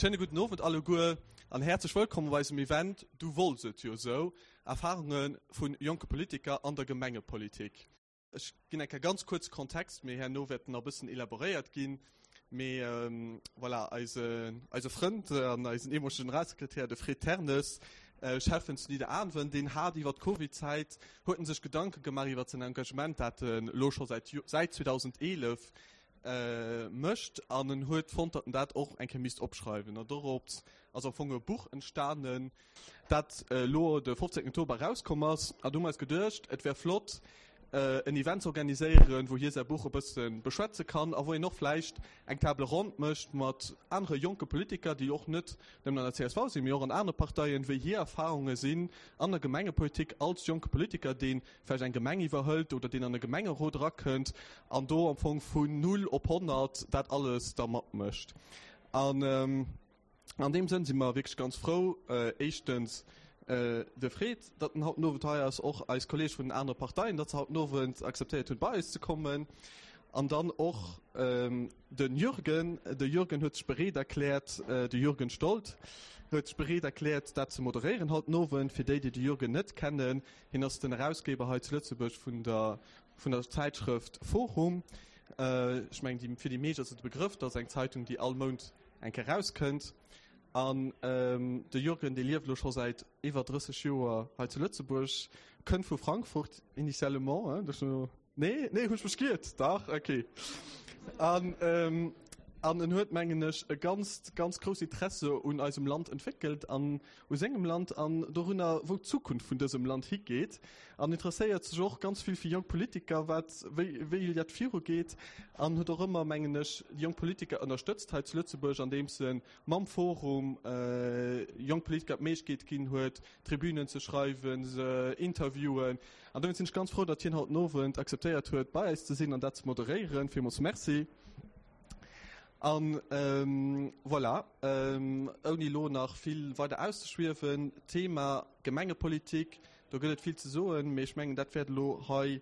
Schéine gudden Owend alleguer an häerzlech wëllkomm op eisem Event Du wollts et jo esou, Erfarunge vu jonke Politiker an der Gemengepolitik. Ech ginn eng Kéier ganz kuerz Kontext, mee herno wäert en nach e bëssen elaboréiert ginn. Mee voilà, eise, eise Frënd an eisen eemolege Generalsekretär, de Fred Ternes, Schäffen zu Nidderaanwen, deen hat iwwer d'Covidzäit, huet en sech Gedanke gemaach iwwer säin Engagement, dat en elo scho säit, säit 2011 mécht an en huet fonnt, datt en dat och eng Kéier misst opschreiwen. An dorops ass am Fong e Buch entstanen, dat elo de 15 Oktober erauskomm ass. An du hu mer eis geduecht, et wär flott, en Event ze organiséieren, wou hie säi Buch e bësse beschwätze kann a wou een och vläicht eng Table ronde mécht mat anere jonke Politiker, déi och net nëmmen an der csv sinn, mee och an anere Parteien, wéi hir Erfarunge sinn an der Gemengepolitik als jonke Politiker, dee vläicht eng Gemeng iwwerhëlt oder deen an e Gemengerot erakënnt an do am Fong vun null op 100 dat alles da matmécht. An An deem Sënn si mer wierklech ganz frou, éischtens de Fred, datt en haut den Owend hei ass, och eis Kolleege vun den anere Parteien, datt se haut den Owend akzeptéiert hunn, bei eis ze kommen, an dann och de Jürgen. De Jürgen huet sech bereet erkläert, de Jürgen Stolt huet sech bereet erkläert, dat ze moderéieren haut den Owend. Fir déi, déi de Jürgen net kennen, hien ass den Erausgeber hei zu Lëtzebuerg vun der vun der Zäitschrëft Forum. Ech mengen, déi, fir déi meescht ass et e Begrëff, dat ass eng Zeitung, déi all Mount eng Kéier erauskënnt. An de Jürgen, dee lieft elo scho säit iwwer 30 Joer hei zu Lëtzebuerg, kënnt vu Frankfurt initialement, hein, duerch no, nee, nee, hunn ech mech giert? Dach, okay. An, an en huet, mengen ech, e ganzt, ganz grousst Interesse un eisem Land entwéckelt an u sengem Land an dorunner, wou d'Zukunft vun dësem Land higeet, an interesséiert sech och ganz vill fir jonk Politiker, wat, wéi, wéi dat virugeet, an huet och ëmmer, mengen ech, déi jonk Politiker ënnerstëtzt hei zu Lëtzebuerg, andeems e mam Forum jonk Politiker d'Méiglechkeet ginn huet, Tribünen ze schreiwen, se interviewen. An dowéinst sinn ech ganz frou, datt hien haut den Owend akzeptéiert huet, bei eis ze sinn an dat ze moderéieren. Villmools Merci. An voilà, ouni elo nach vill weider auszeschwiewen, Thema Gemengepolitik, do gëtt et vill ze soen, mee ech mengen, dat wäert elo hei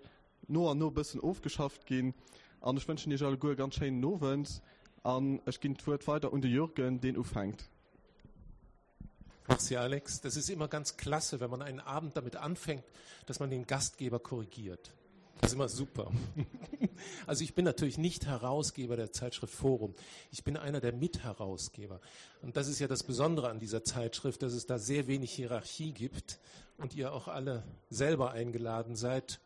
no an no e bëssen ofgeschafft ginn. An ech wënschen Iech alleguer e ganz schéinen Owend an ech ginn d'Wuert weider un de Jürgen, deen ufänkt. Merci Alex. Das ist immer ganz klasse, wenn man einen Abend damit anfängt, dass man den Gastgeber korrigiert. Das ist immer super. Also ich bin natürlich nicht Herausgeber der Zeitschrift Forum. Ich bin einer der Mitherausgeber. Und das ist ja das Besondere an dieser Zeitschrift, dass es da sehr wenig Hierarchie gibt und ihr auch alle selber eingeladen seid,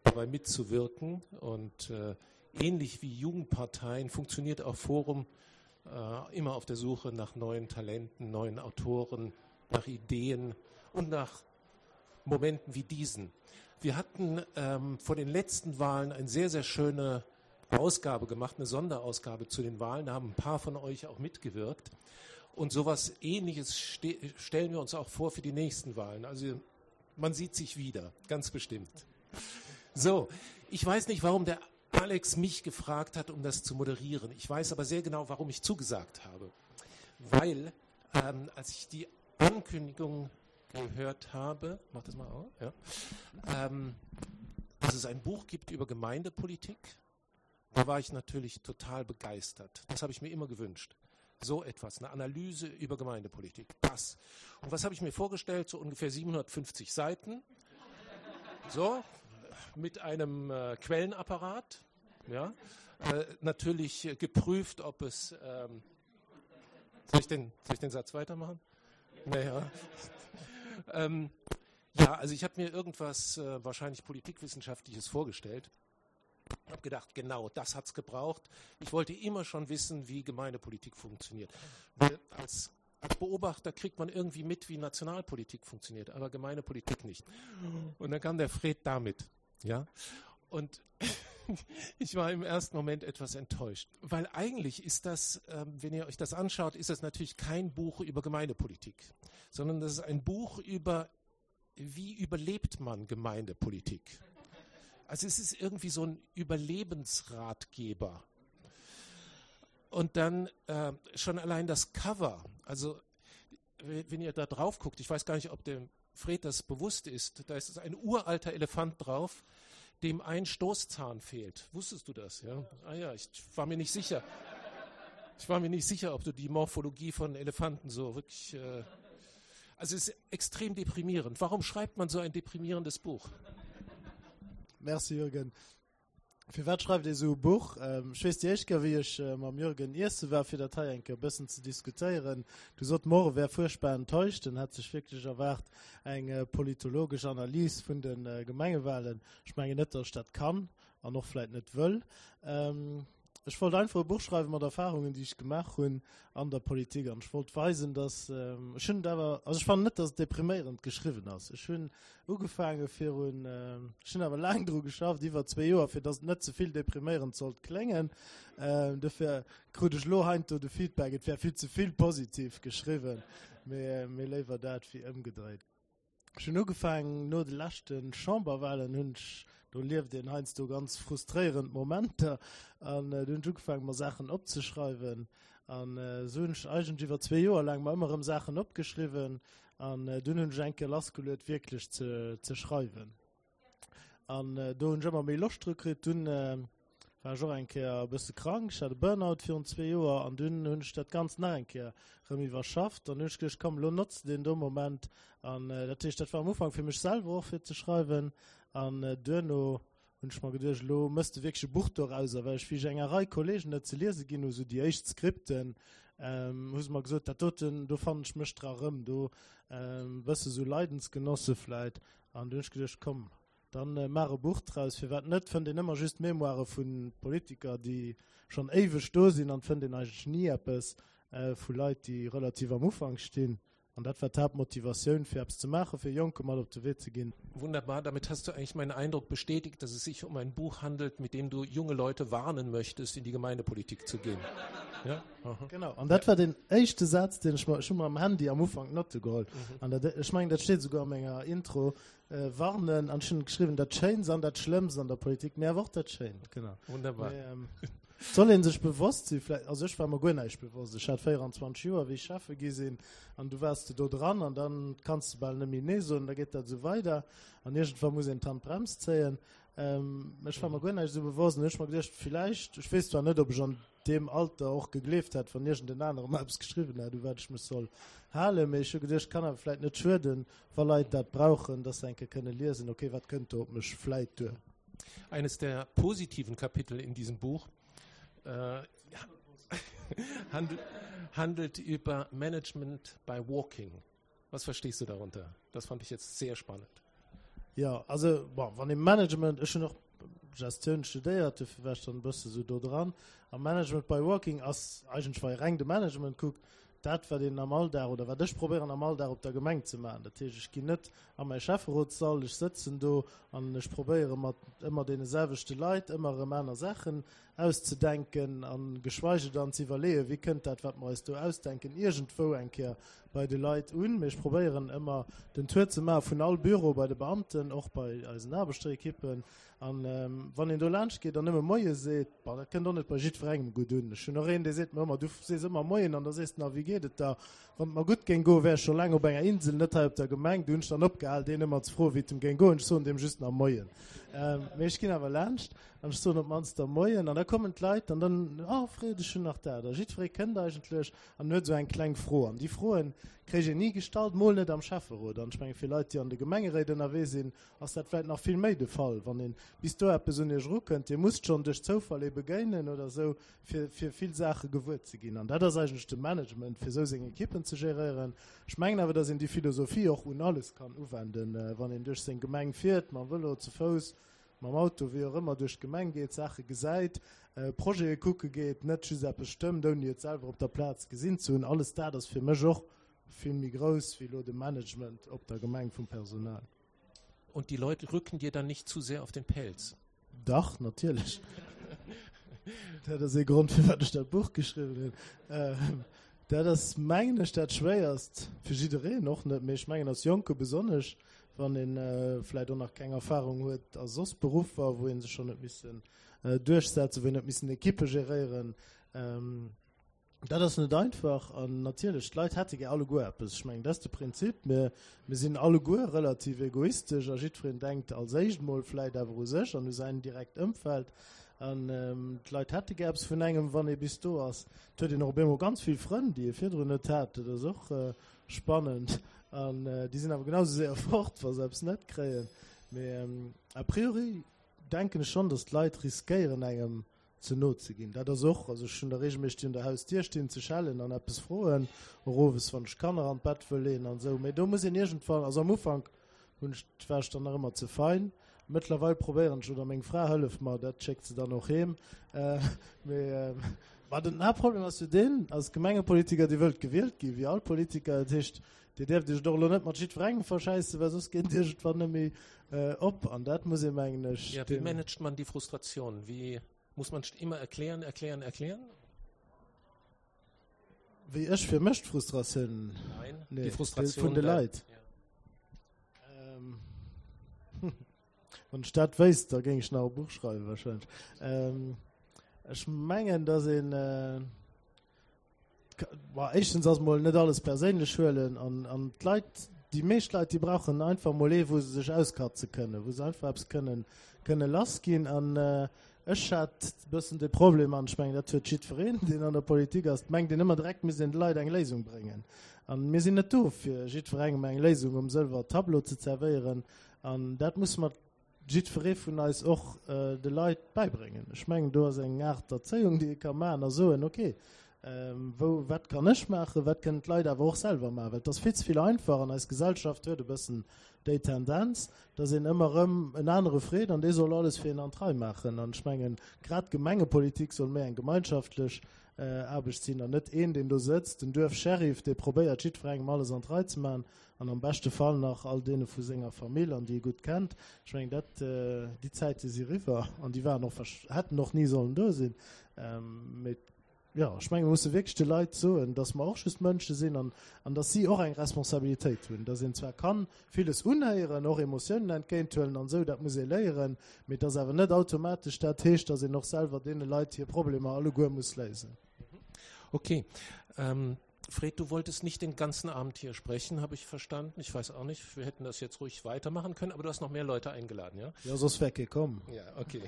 dabei mitzuwirken. Und äh, ähnlich wie Jugendparteien funktioniert auch Forum äh, immer auf der Suche nach neuen Talenten, neuen Autoren, nach Ideen und nach Momenten wie diesen. Wir hatten ähm, vor den letzten Wahlen eine sehr, sehr schöne Ausgabe gemacht, eine Sonderausgabe zu den Wahlen. Da haben ein paar von euch auch mitgewirkt. Und sowas Ähnliches ste stellen wir uns auch vor für die nächsten Wahlen. Also man sieht sich wieder, ganz bestimmt. So, ich weiß nicht, warum der Alex mich gefragt hat, um das zu moderieren. Ich weiß aber sehr genau, warum ich zugesagt habe. Weil, ähm, als ich die Ankündigung gehört habe, mach das mal auf, ja, ähm, dass es ein Buch gibt über Gemeindepolitik, da war ich natürlich total begeistert. Das habe ich mir immer gewünscht. So etwas, eine Analyse über Gemeindepolitik. Das. Und was habe ich mir vorgestellt? So ungefähr 750 Seiten. So, mit einem äh, Quellenapparat. Ja, äh, natürlich äh, geprüft, ob es. Ähm, soll, ich den, soll ich den Satz weitermachen? Naja. ähm, ja, also ich habe mir irgendwas äh, wahrscheinlich politikwissenschaftliches vorgestellt. Ich habe gedacht, genau, das hat's gebraucht. Ich wollte immer schon wissen, wie Gemeindepolitik funktioniert. Weil als, als Beobachter kriegt man irgendwie mit, wie Nationalpolitik funktioniert, aber Gemeindepolitik nicht. Und dann kam der Fred damit. Ja? Und ich war im ersten Moment etwas enttäuscht, weil eigentlich ist das, ähm, wenn ihr euch das anschaut, ist das natürlich kein Buch über Gemeindepolitik, sondern das ist ein Buch über, wie überlebt man Gemeindepolitik. Also es ist irgendwie so ein Überlebensratgeber. Und dann äh, schon allein das Cover, also wenn ihr da drauf guckt, ich weiß gar nicht, ob dem Fred das bewusst ist, da ist ein uralter Elefant drauf, dem ein Stoßzahn fehlt. Wusstest du das? Ja? Ah ja, ich war mir nicht sicher. Ich war mir nicht sicher, ob du die Morphologie von Elefanten so wirklich. Äh also es ist extrem deprimierend. Warum schreibt man so ein deprimierendes Buch? Merci Jürgen. Firwat schreift ee sou e Buch? Ech weess déi éischt Kéier wéi ech mam Jürgen iesse war fir dat hei eng Kéier e bëssen ze diskutéieren, du sot mer och e wär fuerchtbar enttäuscht, en hätt sech wierklech erwaart eng politologesch Analys vun de Gemengewahlen. Ech mengen net, datt ech dat kann an och vläit net wëll. Ech wollt einfach e Buch schreiwe mat Erfahrungen, déi ech gemaach hunn an der Politik. An ech wollt weisen, dass, ech hunn et awer, also ech fannen net, dass et depriméierend geschriwwen ass. Ech hunn ugefaange virun, ech hunn awer laang dru geschafft, iwwer zwee Joer, fir dass et net ze vill depriméierend sollt kléngen. Dofir krut ech elo heiansdo de Feedback, et wär vill ze vill positiv geschriwwen. Mee, mee léiwer dat wéi ëmgedréit. Ech hunn ugefaangen no de leschte Chamberwahlen, hunn ech, do lieft een heiansdo ganz frustréierend Momenter, an do hunn ech ugefaangen mer Saachen opzeschreiwen. An esou hunn ech eigentlech iwwer zwee Joer laang mer ëmmer erëm Saachen opgeschriwwen an dunn hunn ech eng Kéier lassgeluet wierklech ze ze schreiwen. An do hunn ech ëmmer méi Loscht dru kritt. Dunn war ech och eng Kéier e bësse krank, ech hat e Burnout virun zwee Joer an dunn hunn ech dat Ganzt nach eng Kéier rëm iwwerschafft an hunn ech geduecht, komm elo notz de deen do Moment. An dat heescht, dat war am Ufank fir mech selwer och fir ze schreiwen an duerno hunn ech mer geduecht, elo mëss de wierklech e Buch dorauser, well ech wéi ech enger Rei Kollegen et ze liese ginn hu, sou déi éischt Skripten, hu se mer gesot, dat doten, do fannen ech mech dra rëm, do e bësse sou Leidensgenosse vläit. An du hunn ech geduecht, komm, dann maach e Buch draus, firwat net? Fënnt een ëmmer just Memoire vu Politiker, déi schonn éiweg do sinn, an fënnt een eigentlech ni eppes vu Leit, déi relativ am Ufank stinn. An dat war d'Haaptmotivatioun, fir eppes ze maachen, fir Jonke mat op de Wee ze ginn. Wunderbar, damit hast du eigentlich meinen Eindruck bestätigt, dass es sich um ein Buch handelt, mit dem du junge Leute warnen möchtest, in die Gemeindepolitik zu gehen. Ja? Aha. Genau, an dat war den éischte Saz, deen ech mer, ech hu mer am Handy am Ufank Notte geholl. Mhm. An dat, ech mengen, dat steet esouguer a menger Intro, äh, warnen, an ech hunn geschriwwen, dat Schéinst an dat Schlëmmst an der Politik, mee awer och dat Schéint, genau. Wunderbar. Mee, ähm, soll een sech bewosst sinn, vläicht, also ech war mer guer näischt bewosst, ech hat 24 Joer, wéi ech Schäffe gi sinn, an du waars de do dran, an dann kanns de bal net méi Nee soen, da geet dat esou weider, an iergendwann muss een d'Handbrems zéien. Ähm, ech war mer guer näischt esou bewosst, an hu ech mer geduecht, villäicht, ech weess zwar net, ob ech an deem Alter och gegleeft hätt, wann iergend en anere mer eppes geschriwwen hätt, u wat ech mech soll halen. Mee ech hu geduecht, kann awer vläit net schueden, wa Leit dat brauchen, dass se eng Kéier kënne liesen, okay, wat kënnt do op mech vläit duer. Eines der positiven Kapitel in diesem Buch äh, handelt, handelt über Management by Walking. Was verstehst du darunter? Das fand ich jetzt sehr spannend. Ja, also bon, wann ee Management, ech hunn och Gestioun studéiert, dofir war ech dann e bësse sou do dran. A Management by Walking ass eigentlech, wa ee reng de Management kuckt, dat wat een am Alldag oder wat ech probéieren am Alldag op der Gemeng ze maachen. Dat heescht, ech ginn net a mäi Schäfferotssall, ech sëtzen do an ech probéiere mat ëmmer deene selwechte Leit ëmmer erëm aner Saachen auszedenken a geschweige dann ze iwwerleeën, wéi kënnt dat, wat mer eis do ausdenken, iergendwou eng Kéier bei de Leit un. Mee ech probéieren ëmmer den Tour ze maache vun all Büro bei de Beamten, och bei eisen Aarbechterekippen. An wann een do laanscht geet an nëmme Moie seet, bon, dat kënnt och net bei jiddwerengem gutt un. Ech hunn och een, dee seet mer ëmmer, du sees ëmmer Moien an da sees de nach, wéi geet et der? Wann et mer gutt géing goen, wär ech scho laang op enger Insel, net hei op der Gemeng. Du hunn ech dann opgehal, deen ëmmer ze froen, wéi et em géing goen. Ech soen deem just nach Moien. Mee ech ginn awer laanscht an ech soen op d'mannst da Moien. An da kommen d'Leit an dann, Oh Fred, ech hunn nach dat. A jiddweree kënnt eigentlech an huet esou eng kleng Fro. An déi Froen kréich een ni gestallt, mol net am Schäfferot. An ech menge fir Leit, déi an de Gemengeréit ënnerwee sinn, ass dat vläit nach vill méi de Fall, wann een bis do eppes un iech erukënnt. Dir musst schonn duerch Zoufall ee begéinen oder esou, fir, fir vill Saache gewuer ze ginn. An dat ass eigentlech de Management, fir esou seng Ekippen ze geréieren. Ech mengen awer, datt een déi Philosophie och un alles kann uwenden, wann een duerch seng Gemeng fiert, mam Vëlo, ze Fouss, mam Auto, wéi och ëmmer, duerch d'Gemeng geet, Saache gesäit, Projete kucke geet, net just eppes stëmmt, ouni et selwer op der Plaz gesinn ze hunn. Alles dat ass fir mech och vill méi grouss wéi elo de Management op der Gemeng vum Personal. Und die Leute rücken dir dann nicht zu sehr auf den Pelz? Dach, natierlech. Dat ass ee Grond, firwat ech dat Buch geschriwwen hunn. Dat ass, mengen ech, dat Schwéierst fir jiddereen, och net, mee ech mengen als Jonke besonnesch, wann ee vläicht och nach keng Erfahrung huet a soss Beruffer, wou ee sech schonn huet missen duerchsetzen, wou een huet missen Ekippe geréieren. Dat ass net einfach an natierlech, d'Leit hätte gär alleguer eppes. Ech mengen, dat ass de Prinzip. Mir, mir sinn alleguer relativ egoistesch a jiddwereen denkt als éischt mol vläit awer u sech an u säin direkt Ëmfeld. An d'Leit hätte gär eppes vun engem, wann ee bis do ass. Et huet een och op eemol ganz vill Frënn, déi ee virdrun net hat. Dat ass och spannend. An déi sinn awer genau sou séier fort, wa se eppes net kréien. Mee a priori denken ech schonn, datt d'Leit riskéieren, engem ze no ze ginn. Dat ass och, also ech hunn der regelméisseg, déi un der Hausdier stinn, ze schellen an eppes froen, och owes, wann ech d'Kanner an d'Bett wëll leeën an esou. Mee do muss een iergendwann, also am Ufank hunn ech, war ech dann nach ëmmer ze fein. Mëttlerweil probéieren ech, oder meng Fra hëlleft mer, dat schéckt se dann och heem. Mee ma den Haaptproblem ass jo deen, als Gemengepolitiker, Dir wëllt gewielt ginn, wéi all Politiker. Dat heescht, Dir däerft Iech et och elo net mat jiddwerengem verschäissen, well soss geet et iergendwann net méi op. An dat muss ee, mengen ech, Ja, wie managt man die Frustration? Wie muss man immer erklären, erklären, erklären? Wéi ech fir mech d'Frustratioun? Nein, nee, die Frustration vun de Leit. Ja. Ähm, wann ech dat wéisst, da géing ech nach e Buch schreiwen wahrscheinlech. Ähm, ech mengen, dass een äh, Bah, éischtens ass mol net alles perséinlech huelen an, an d'Leit, déi meescht Leit, déi brauchen einfach mol ee, wou se sech auskatze kënnen, wou se einfach eppes kënnen, kënne lass ginn. An äh, ech hat e bëssen de Problem, an ech mengen, dat huet jiddwereen, deen an der Politik ass, mengt een ëmmer direkt misst een de Leit eng Léisung bréngen. An mir sinn net do, fir jiddwerengem eng Léisung um sëlwer Tableau ze zerwéieren. An dat musse mer jiddweree vun eis och de Leit bäibréngen. Ech mengen, do ass eng Aart Erzéiung, déi ee ka maachen a soen, okay, wou, wat kann ech maachen, wat kënnen d'Leit awer och selwer maachen? Well et ass vill ze vill einfach an eis Gesellschaft huet e bëssen déi Tendenz, dass een ëmmer erëm en anere freet an dee soll alles fir een an d'Rei maachen. An ech mengen, grad d'Gemengepolitik soll méi eng gemeinschaftlech Aarbecht sinn an net een, deen do sëtzt, den Duerfsheriff, dee probéiert, jiddwerengem alles an d'Rei ze maachen an am beschte Fall nach all deene vu senger Famill an déi e gutt kennt. Ech mengen, dat, déi Zäite si riwwer an déi waren och, hätten och ni sollen do sinn. Mee jo, ech mengen, mir musse wierklech de Leit soen, dass mer och just Mënsche sinn an, an dass si och eng Responsabilitéit hunn, dass een zwar kann villes unhéieren, och Emotiounen entgéinthuelen an esou, dat muss ee léieren, mee dass awer net automatesch dat heescht, dass een och selwer deene Leit hir Problemer alleguer muss léisen. Okay. Ähm, Fred, du wolltest nicht den ganzen Abend hier sprechen, habe ich verstanden. Ich weiß auch nicht, wir hätten das jetzt ruhig weitermachen können, aber du hast noch mehr Leute eingeladen, ja? Ja, soss wär kee komm. Ja, okay.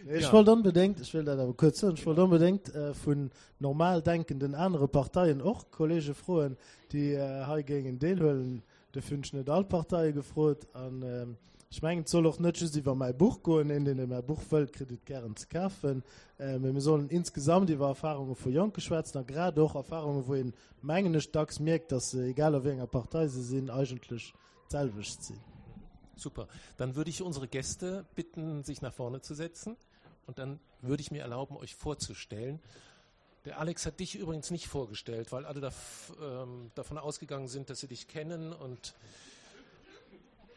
Nee, ech ja. wollt onbedéngt, ech wëll dat awer kuerz soen, ech wollt onbedéngt äh, vun normal denkenden anere Parteien och Kollege froen, déi äh, hei géingen deelhuelen. Dofir hunn ech net all d'Parteie gefrot. An ech mengen, et soll och net just iwwer mäi Buch goen. Een, deen mäi Buch wëllt, kritt et gären ze kafen. Mee mir sollen insgesamt iwwer Erfarunge vu Jonke schwätzen a grad och Erfarunge, wou een, mengen ech, dacks mierkt, datt se, egal a wéi enger Partei se sinn, eigentlech d'selwecht sinn. Super. Dann würde ich unsere Gäste bitten, sich nach vorne zu setzen. Und dann würde ich mir erlauben, euch vorzustellen. Der Alex hat dich übrigens nicht vorgestellt, weil alle da, ähm, davon ausgegangen sind, dass sie dich kennen und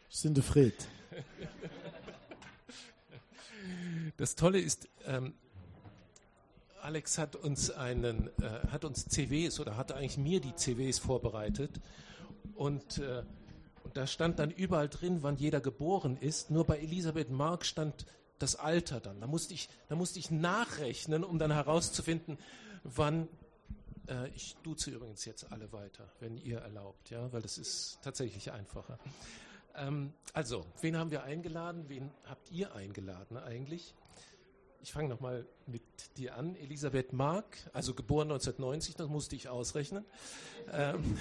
sind Fred. Das Tolle ist, ähm, Alex hat uns einen äh, hat uns CWs oder hat eigentlich mir die CWs vorbereitet und, äh, und da stand dann überall drin, wann jeder geboren ist. Nur bei Elisabeth Mark stand das Alter dann. Da musste ich, da musste ich nachrechnen, um dann herauszufinden, wann äh, ich duze übrigens jetzt alle weiter, wenn ihr erlaubt, ja, weil das ist tatsächlich einfacher. Ähm, also, wen haben wir eingeladen? Wen habt ihr eingeladen eigentlich? Ich fange noch mal mit dir an. Elisabeth Mark, also geboren 1990, das musste ich ausrechnen. Ähm,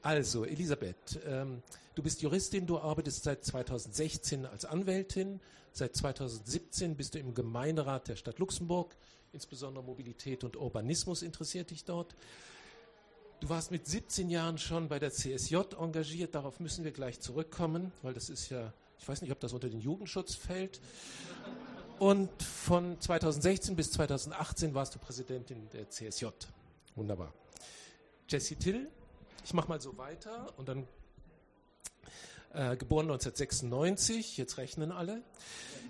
also, Elisabeth, ähm, du bist Juristin, du arbeitest seit 2016 als Anwältin. Seit 2017 bist du im Gemeinderat der Stadt Luxemburg. Insbesondere Mobilität und Urbanismus interessiert dich dort. Du warst mit 17 Jahren schon bei der CSJ engagiert. Darauf müssen wir gleich zurückkommen, weil das ist ja, ich weiß nicht, ob das unter den Jugendschutz fällt. Und von 2016 bis 2018 warst du Präsidentin der CSJ. Wunderbar. Jesse Till, ich mache mal so weiter und dann äh, geboren 1996, jetzt rechnen alle,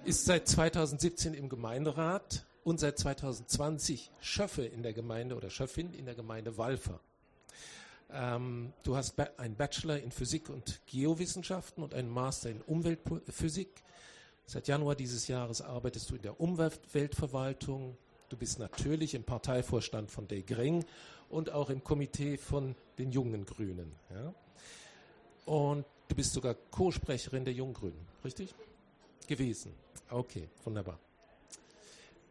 ist seit 2017 im Gemeinderat und seit 2020 Schöffe in der Gemeinde oder Schöffin in der Gemeinde Walfer. Ähm, du hast einen Bachelor in Physik und Geowissenschaften und einen Master in Umweltphysik. Seit Januar dieses Jahres arbeitest du in der Umweltverwaltung. Du bist natürlich im Parteivorstand von De Gring und auch im Komitee von den jungen Grünen. Ja? Und du bist sogar Co-Sprecherin der Junggrünen, richtig? Gewesen. Okay, wunderbar.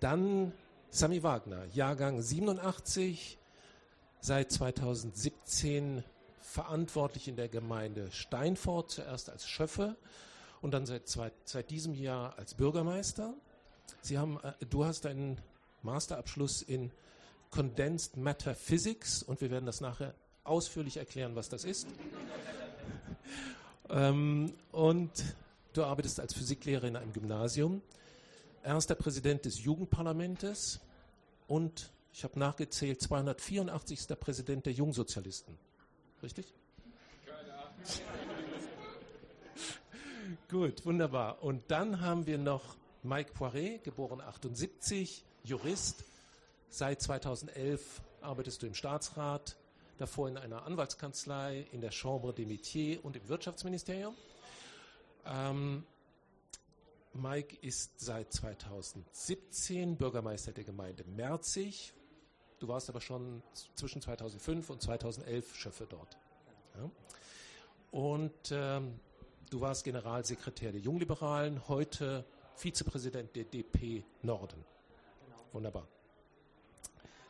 Dann Sami Wagner, Jahrgang 87, seit 2017 verantwortlich in der Gemeinde Steinfort, zuerst als Schöffe und dann seit, zwei, seit diesem Jahr als Bürgermeister. Sie haben, äh, du hast einen Masterabschluss in Condensed Matter Physics und wir werden das nachher ausführlich erklären, was das ist. ähm, und du arbeitest als Physiklehrer in einem Gymnasium, erster Präsident des Jugendparlamentes und ich habe nachgezählt 284. Präsident der Jungsozialisten. Richtig? Gut, wunderbar. Und dann haben wir noch Mike Poiret, geboren 78, Jurist. Seit 2011 arbeitest du im Staatsrat, davor in einer Anwaltskanzlei, in der Chambre des Métiers und im Wirtschaftsministerium. Ähm, Mike ist seit 2017 Bürgermeister der Gemeinde Merzig. Du warst aber schon zwischen 2005 und 2011 Schöffe dort. Ja. Und ähm, du warst Generalsekretär der Jungliberalen, heute Vizepräsident der DP Norden. Genau. Wunderbar.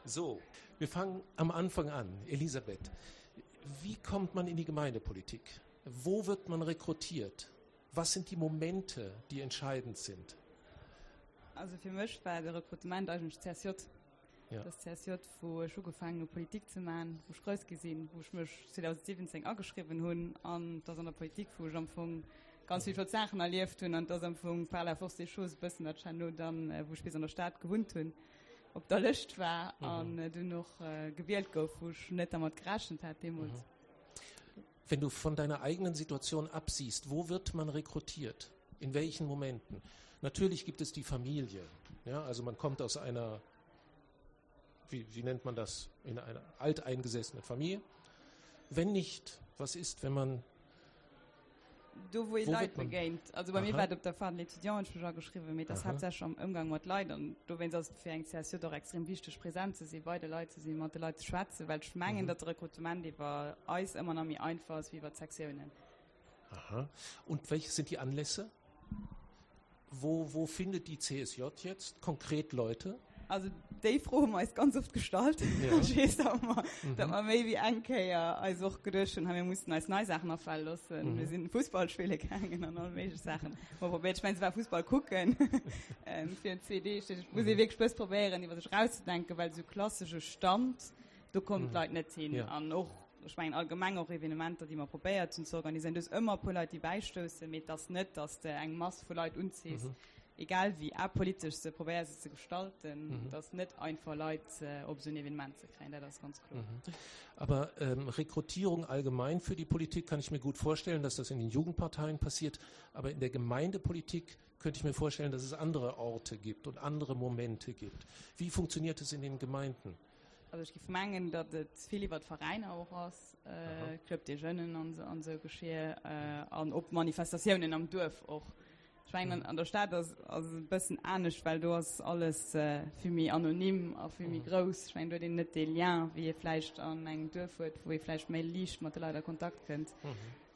So, wir fangen am Anfang an. Elisabeth, wie kommt man in die Gemeindepolitik? Wo wird man rekrutiert? Was sind die Momente, die entscheidend sind? Also fir mech war de Rekrutement eigentlech d'CSJ. Ja. Das CSJ, wou ech ugefaangen hu Politik ze man, wou ech grouss gi sinn, wou ech mech 2017 ageschriwwen hunn an dass an der Politik, wou ech am Fong ganz vill flott Saachen erlieft hunn an dass am Fong par la force des choses e bëssen dat herno dann, wou ech bis an der Stad gewunnt hunn, op der Lëscht war an dunn och gewielt gouf, wou ech net dermat gerechent hat deemools. Wenn du von deiner eigenen Situation absiehst, wo wird man rekrutiert? In welchen Momenten? Natürlich gibt es die Familie. Ja, also man kommt aus einer, wie, wie nennt man das, in einer alteingesessenen Familie. Wenn nicht, was ist, wenn man Do wou ee Leit begéint. Also bei mir war et op der Fahrt l'étudiant, hunn ech mech ageschriwwen, mee et ass haaptsächlech am Ëmgang mat Leit an dowéinst ass et fir eng CSJ och extrem wichteg present ze sinn, bei de Leit ze sinn, mat de Leit ze schwätzen, well ech mengen, datt de Rekrutement iwwer eis ëmmer nach méi einfach ass wéi iwwer d'Sektiounen. Aha. Und welche sind die Anlässe? Wo, wo findet die CSJ jetzt konkret Leute? Also déi Fro hu mer eis ganz oft gestallt. Ja. Ech weess, datt mer, mhm. datt mer méi wéi eng Kéier eis och geduecht hunn, mir mussen eis nei Saachen afale loossen. Mhm. Mir sinn Fussball spille gaangen an all méiglech Saachen. Mer probéiert, ech mengen, se war Fussball kucken ähm, fir zwee Deeg. Et muss ee mhm. wierklech bëss probéieren, iwwer sech rauszedenken, well sou klassesche Stand, do kommen mhm. d'Leit net hin. Ja. An och ech mengen allgemeng och Evenementer, déi mer probéiert hunn ze organiséieren, do ass ëmmer e puer Leit, déi bäistoussen, mee et ass net, datt s de eng Mass vu Leit unziss, egal wéi apolitesch s de probéiers et ze gestalten, et ass net einfach Leit op esou en Evenement ze kréien, dat ass ganz kloer. Aber Rekrutierung allgemein für die Politik kann ich mir gut vorstellen, dass das in den Jugendparteien passiert, aber in der Gemeindepolitik könnte ich mir vorstellen, dass es andere Orte gibt und andere Momente gibt. Wie funktioniert es in den Gemeinden? Also ech géif mengen, datt et vill iwwer d'Veräiner och ass, Club des Jeunes an esou Geschir an op Manifestatiounen am Duerf och. Ech mengen an der Stad ass ass et e bëssen anescht, well do ass alles vill méi anonym a vill méi grouss. Ech mengen do huet een net dee Lien, wéi ee vläicht an engem Duerf huet, wou ee vläicht méi liicht mat de Leit a Kontakt kënnt.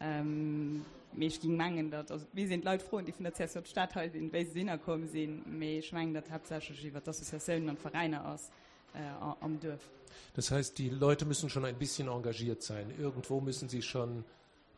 Mee ech géing mengen, datt, also et misst een d'Leit froen, déi vun der CSJ Stad hei sinn, wéi se dohinner komm sinn, mee ech mengen, datt haaptsächlech iwwer d'Associatiounen an d'Veräiner ass. am Duerf. Das heißt, die Leute müssen schon ein bisschen engagiert sein. Irgendwo müssen sie schon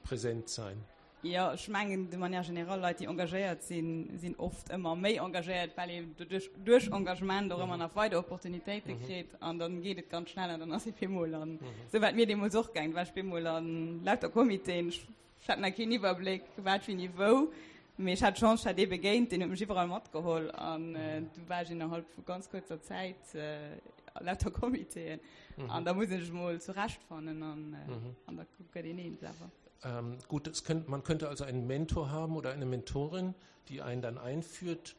präsent sein. Jo, ech mengen de manière générale, Leit, déi engagéiert sinn, sinn oft ëmmer méi engagéiert, well een doduerch, duerch Engagement och ëmmer nach weider Opportunitéite kritt an dann geet et ganz schnell an dann ass ee bemol an, esou war et mir deemools och gaang, da war ech bemol an lauter Comitéen, ech Ech hat nach keen Iwwerbléck, wat, wéini, wou, mee ech hat d'Chance, ech hat ee begéint, deen huet mech iwwerall matgeholl an du war ech innerhalb vu ganz kuerzer Zäit a lauter Comitéen an da muss een sech mol zurechtfannen an an da gëtt een eens awer. Gut, es könnt, man könnte also einen Mentor haben oder eine Mentorin, die einen dann einführt.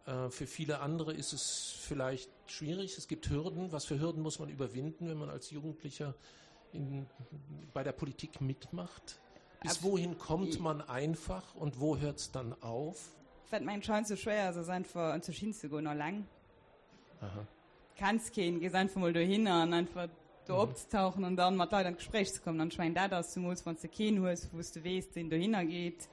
Für viele andere ist es vielleicht schwierig. Es gibt Hürden. Was für Hürden muss man überwinden, wenn man als Jugendlicher in, bei der Politik mitmacht? Bis wohin kommt man einfach und wo hört es dann auf? Wat mengen scheint so schwéier ass, ass einfach an sech hinzegoen alleng. Aha. Kenns keen, gees einfach mol dohinner an einfach do mhm. opzetauchen an dann mat Leit an d'Gespréich ze kommen. An ech mengen dat ass zemools wann s de keen hues, wou s de weess, deen dohinner geet.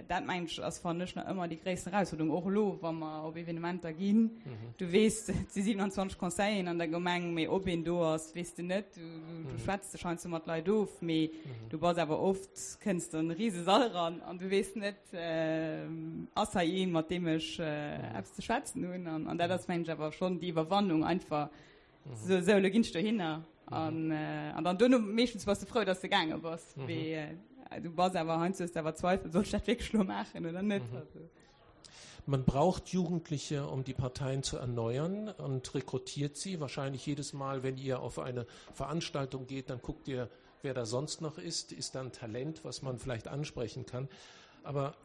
Dat mengen ech ass, fannen ech, nach ëmmer déi gréissten Erausfuerderung, och elo wa mer op Evenementer ginn. Du weess, et si 27 Conseilleren an der Gemeng, mee ob een do ass, weess de net. Du schwätz dech heiansdo mat Leit of, mee du bass awer oft, kënns de an e rise Sall eran an du weess net, ass hei een, mat deem ech eppes ze schwätzen hunn. An dat ass, mengen ech, awer schonn déi Iwwerwannung einfach, Sou, sou, lo ginn ech dohinner. An, äh, an dann duerno meeschtens bass de frou, dass de gaange bass. Mhm. Wéi, äh, du bass awer heiansdo hues de awer Zweifel, soll ech dat wierklech lo maachen oder net? Mhm. Also. Man braucht Jugendliche, um die Parteien zu erneuern und rekrutiert sie. Wahrscheinlich jedes Mal, wenn ihr auf eine Veranstaltung geht, dann guckt ihr, wer da sonst noch ist. Ist da ein Talent, was man vielleicht ansprechen kann. Aber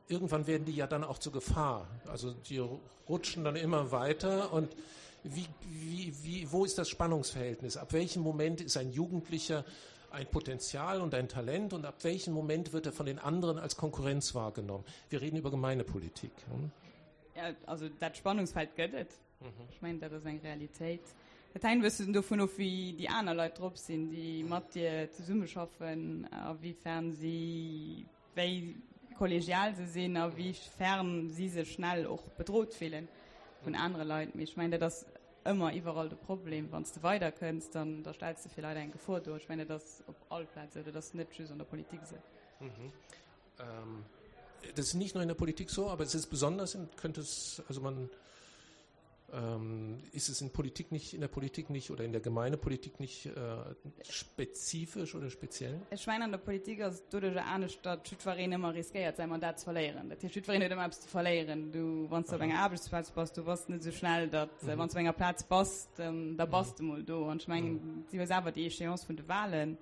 irgendwann werden die ja dann auch zur Gefahr. Also die rutschen dann immer weiter und wie, wie, wie, wo ist das Spannungsverhältnis? Ab welchem Moment ist ein Jugendlicher ein Potenzial und ein Talent und ab welchem Moment wird er von den anderen als Konkurrenz wahrgenommen? Wir reden über Gemeindepolitik. Hm? Ja, also dat Spannungsfeld gëtt et. Mhm. Ech mengen, dat ass eng Realitéit. Dat hänkt e bëssen dovun of, wéi déi aner Leit drop sinn, déi mat dir zesummeschaffen, a wéifern si wéi kollegial se sinn a wéi fern si sech schnell och bedrot fillen vun anere Leit. Mee ech mengen, dat ass ëmmer iwwerall de Problem. Wann s de weiderkënns, dann da stells de fir Leit eng Gefor do. Ech mengen, dat ass op all Plaz esou, dat ass net just an der Politik esou. Mhm. Ähm, das ist nicht nur in der Politik so, aber es ist besonders, könnte es, also man Ähm, ist es in Politik nicht, in der Politik nicht oder in der Gemeindepolitik nicht äh, spezifisch oder speziell? Ech mengen an der Politik ass et doduercher anescht, datt jiddwereen ëmmer riskéiert säi Mandat ze verléieren. Dat heescht jiddwereen huet ëmmer eppes ze verléieren. Du wann s de op enger Aarbechtsplaz bass, du bass net esou schnell, datt mhm. wann s du op enger Plaz bass, dann, da bass du mol do. An ech mengen, mhm. si hues awer déi Échéance vun de Wahlen.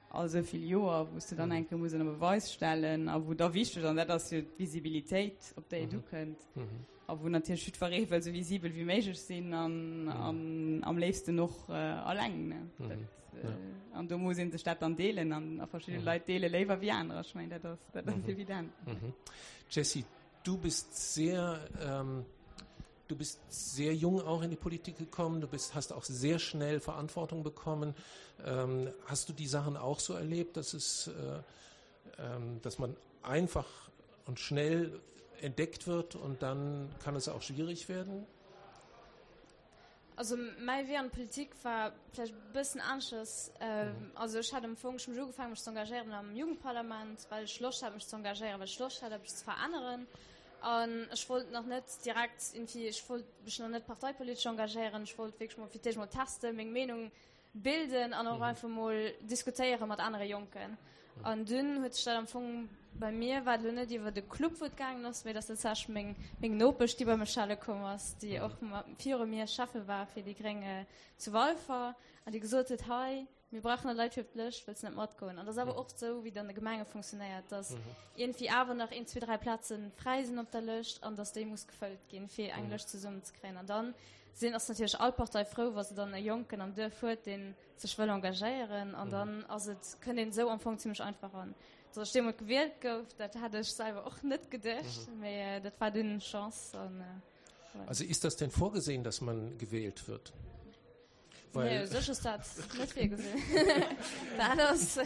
all esou vill Joer, wou s de dann eng Kéier muss ënner Beweis stellen a wou da wichteg, an dat ass jo d'Visibilitéit, op déi et ukënnt, a wou natierlech jiddweree wëll esou visibel wéi méiglech sinn an, an am léifsten och alleng, ne. Dat, an do muss ee sech dat dann deelen an a verschidde Leit deele léiwer wéi anerer. Ech mengen, dat ass, dat ass evident. Jessy, du bist sehr, ähm, Du bist sehr jung auch in die Politik gekommen, du bist, hast auch sehr schnell Verantwortung bekommen. Ähm, hast du die Sachen auch so erlebt, dass es, äh, ähm, dass man einfach und schnell entdeckt wird und dann kann es auch schwierig werden? Also mäi Wee an d'Politik war vläicht e bëssen aneschters. Also ech hat am Fong, ech hu mech ugefaangen mech ze engagéieren am Jugendparlament, well ech Loscht hat mech ze engagéieren, well ech Loscht hat eppes ze veränneren. An ech wollt nach net direkt irgendwie, ech wollt mech nach net parteipolitesch engagéieren, ech wollt wierklech mol fir d'éischt mol testen, meng Meenung bilden an och einfach mol diskutéiere mat anere Jonken. An dunn huet sech dat am Fong, bei mir war et elo net iwwer de Club wou et gaangen ass, mee et ass tatsächlech meng, meng Nopesch déi bei mech schelle komm ass, déi och viru mir Schäffe war fir déi Gréng zu Walfer an déi gesot huet, hei, mir brauchen nach Leit fir op d'Lëscht, wëlls de net matgoen? An dat ass awer oft esou, wéi et an de Gemenge funktionéiert, dass iergendwéi awer nach een, zwee, dräi Plaze fräi sinn op der Lëscht an dass déi muss gefëllt ginn, fir eng Lëscht zesummenzekréien. An dann sinn, ass natierlech all Partei frou, wa se dann e Jonken am Duerf huet, dee sech wëll engagéieren. An dann ass et, kënnt een esou am Fong zimmlech einfach eran. Dass ech deemools gewielt gouf, dat hat ech selwer och net geduecht, mee dat war dunn Chance. An, voilà. Also ist das denn vorgesehen, dass man gewählt wird? Weil nee, sech ass dat net virgesinn. Dat ass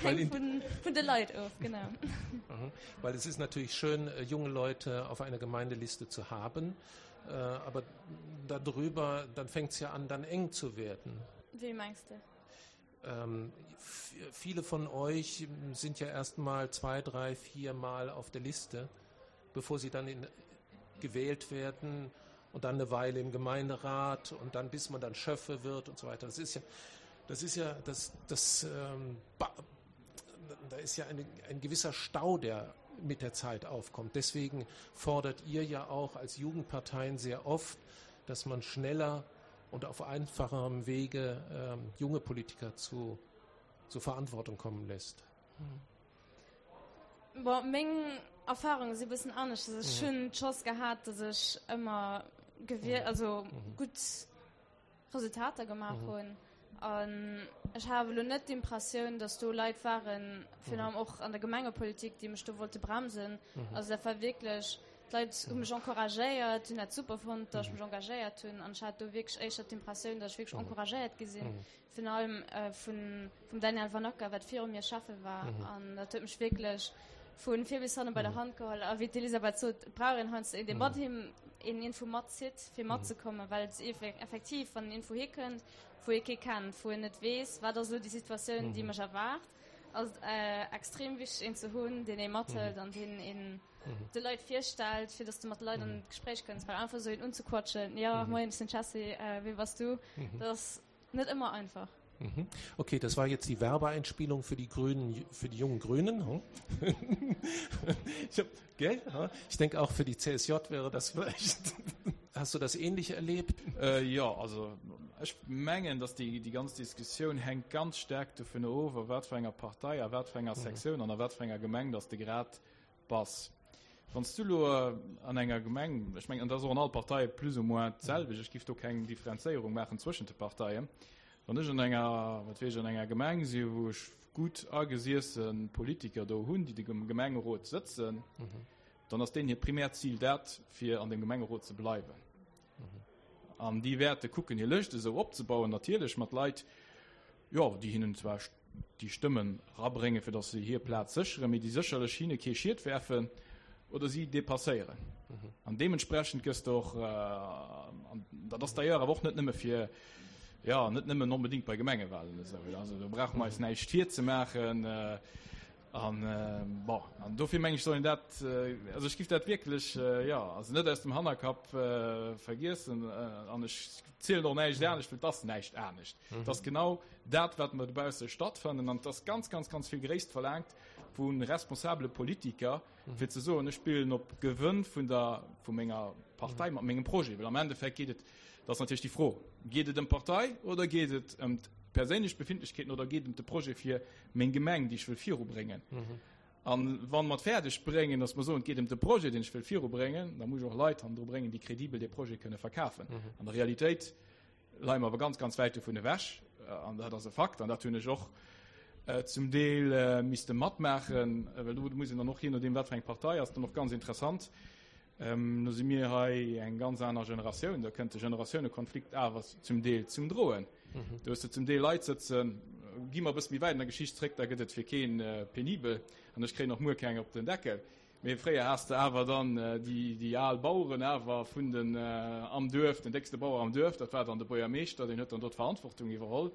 hänkt vun, vun de Leit of, genau. Mhm. Weil es ist natürlich schön, äh, junge Leute auf einer Gemeindeliste zu haben, äh, aber darüber, dann fängt es ja an, dann eng zu werden. Wie meinst du? Ähm, viele von euch sind ja erst mal zwei, drei, vier Mal auf der Liste, bevor sie dann in, gewählt werden und dann eine Weile im Gemeinderat und dann bis man dann Schöffe wird und so weiter. Das ist ja, das ist ja, das, das, ähm, da ist ja eine, ein gewisser Stau, der mit der Zeit aufkommt. Deswegen fordert ihr ja auch als Jugendparteien sehr oft, dass man schneller und auf einfacherem Wege ähm, junge Politiker zu, zur Verantwortung kommen lässt. Hm. Bon, meng Erfahrungen si bëssen anescht. Also, ech hunn d'Chance gehat, dass ech ëmmer gewielt, also gutt Resultater gemaach hunn. An ech hat awer elo net d'Impressioun, dass do Leit waren, virun allem och an der Gemengepolitik, déi mech do wollte bremsen. Also dat war wierklech, d'Leit hu mech encouragéiert, hunn dat super fonnt, dass ech mech engagéiert hunn. An ech hat do wierklech éischter d'Impressioun, dass ech wierklech encouragéiert gi sinn. Virun allem vun, vum Daniel Vanacker, wat viru mir Schäffe war. An dat huet mech wierklech. Vu vir bis hanne bei der Hand geholl. A wéi d'Elisabeth sot, et brauch een heiansdo een, dee mat him een iergendwou matzitt, fir matzekommen, well et effektiv, wann een iergendwou hikënnt, wou ee kee kennt, wou een net weess, wat ass elo déi Situatioun, déi mech erwaart, ass et extrem wichteg, een ze hunn, deen ee mathëlt an deen een de Leit virstellt, fir dass de mat de Leit an d'Gespréich kënns. Well einfach esou een unzequatschen, jo, moien, ech sinn d'Jessie, wee bass du, dat ass net ëmmer einfach. Mhm. Okay, das war jetzt die Werbeeinspielung für die Grünen, für die jungen Grünen. Hm? ich, hab, gell? Ich denke auch für die CSJ wäre das vielleicht. Hast du das ähnlich erlebt? Äh, ja, also ech mengen, dass déi, déi ganz Diskussioun hänkt ganz staark dovun of, a wat fir enger Partei, a wat fir enger mhm. Sektioun an a wat fir enger Gemeng, dass de grad bass. Wann s du elo an enger Gemeng, ech mengen, an dat ass och an all Partei plus ou moins d'selwecht, ech giff do keng Differenzéierung maachen zwëschent de Parteien, wann ech an enger, wat weess ech, an enger Gemeng si wou ech gutt agesiesse Politiker do hunn, déi am Gemengerot sëtzen, dann ass deenen hiert primäert Zil dat, fir an deem Gemengerot ze bleiwen. An déi wäerte kucken, hir Lëscht esou opzebauen, natierlech mat Leit, jo, déi hinnen zwar déi Stëmmen erabréngen, fir datt se hir Plaz sécheren, mee déi sécherlech hinne kee Schied werfen oder si depasséieren. An deementsprechend gëss de och, an dat ass d'ailleurs awer och net nëmme fir, jo, net nëmmen onbedéngt bei Gemengewahlen esou, also do brauche mer eis näischt virzemaachen, An, bon, an dofir meng ech, soll een dat, also ech giff dat wierklech, jo, also net aus dem Hannerkapp vergiessen. An ech zielen och näischt anescht, well et ass näischt anescht. Et ass genau dat, wat mer dobausse stattfannen. An et ass ganz, ganz, ganz vill Gréisst verlaangt vu responsabele Politiker, fir ze soen, ech spillen op Gewënn vun der, vu menger Partei mat mengem Projet. Well am Endeffekt geet et, dat ass natierlech déi Fro, Geet et ëm d'Partei oder geet et ëm d'perséinlech Befindlechkeeten oder geet et ëm de Projet fir meng Gemeng, déi ech wëll virubréngen? An wa mer et fäerdeg bréngen, datt mer soen, et geet ëm de Projet, deen ech wëll virubréngen, da muss ech och Leit hannendru bréngen, déi kredibel dee Projet kënne verkafen. An der Realitéit leie mer awer ganz, ganz wäit dovun ewech. An dat ass e Fakt. An dat hunn ech och zum Deel misste matmaachen, well do muss een dann och, jee nodeem wat fir eng Partei ass, dann och ganz interessant, Do si mir hei eng ganz aner Generatioun, da kënnt de Generatiounekonflikt awer zum Deel zum Droen. Do hues de zum Deel Leit sëtzen, gi mer e bësse méi wäit an der Geschicht zréck, da gëtt et fir kee penibel an ech kréien och muer keng op den Deckel. Mee fréier has de awer dann déi al Baueren awer vun den am Duerf, den déckste Bauer am Duerf, dat war dann de Buergermeeschter, deen huet dann do d'Verantwortung iwwerholl.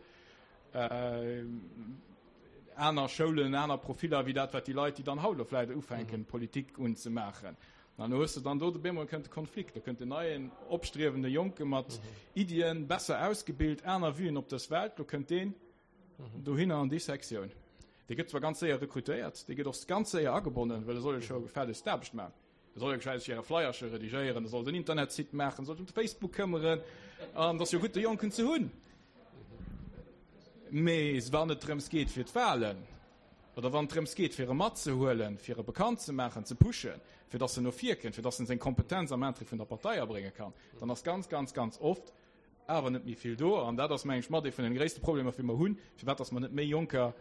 Aner Schoulen, aner Profiller wéi dat, wat déi Leit, déi dann haut elo vläicht ufänken, Politik unzemaachen. An do hues de dann do, op eemol kënnt de Konflikt, do kënnt en neien, opstriewende Jonke mat Iddien, besser ausgebilt, aner Vuen op dës Welt, do kënnt deen dohinner an déi Sektioun. Dee gëtt zwar ganz séier rekrutéiert, dee gëtt och ganz séier agebonnen, well e soll jo scho gefällegst d'Aarbecht maachen. E soll jo gescheit hire Flyerche redigéieren, e soll den Internetsite maachen, e soll sech ëm de Facebook këmmeren, an et ass jo gutt, de Jonken ze hunn. Mee wann et drëms geet fir d'Wahlen, oder wann et drëms geet fir e matzehuelen, fir e bekannt ze maachen, ze pushen, fir datt en no vir kënnt, fir datt en seng Kompetenz am Interêt vun der Partei abrénge kann, dann ass ganz, ganz, ganz oft awer net méi vill do. An dat ass, meng ech, mat ee vun den gréisste Problemer, wéi mer hunn, firwat datt mer net méi Jonker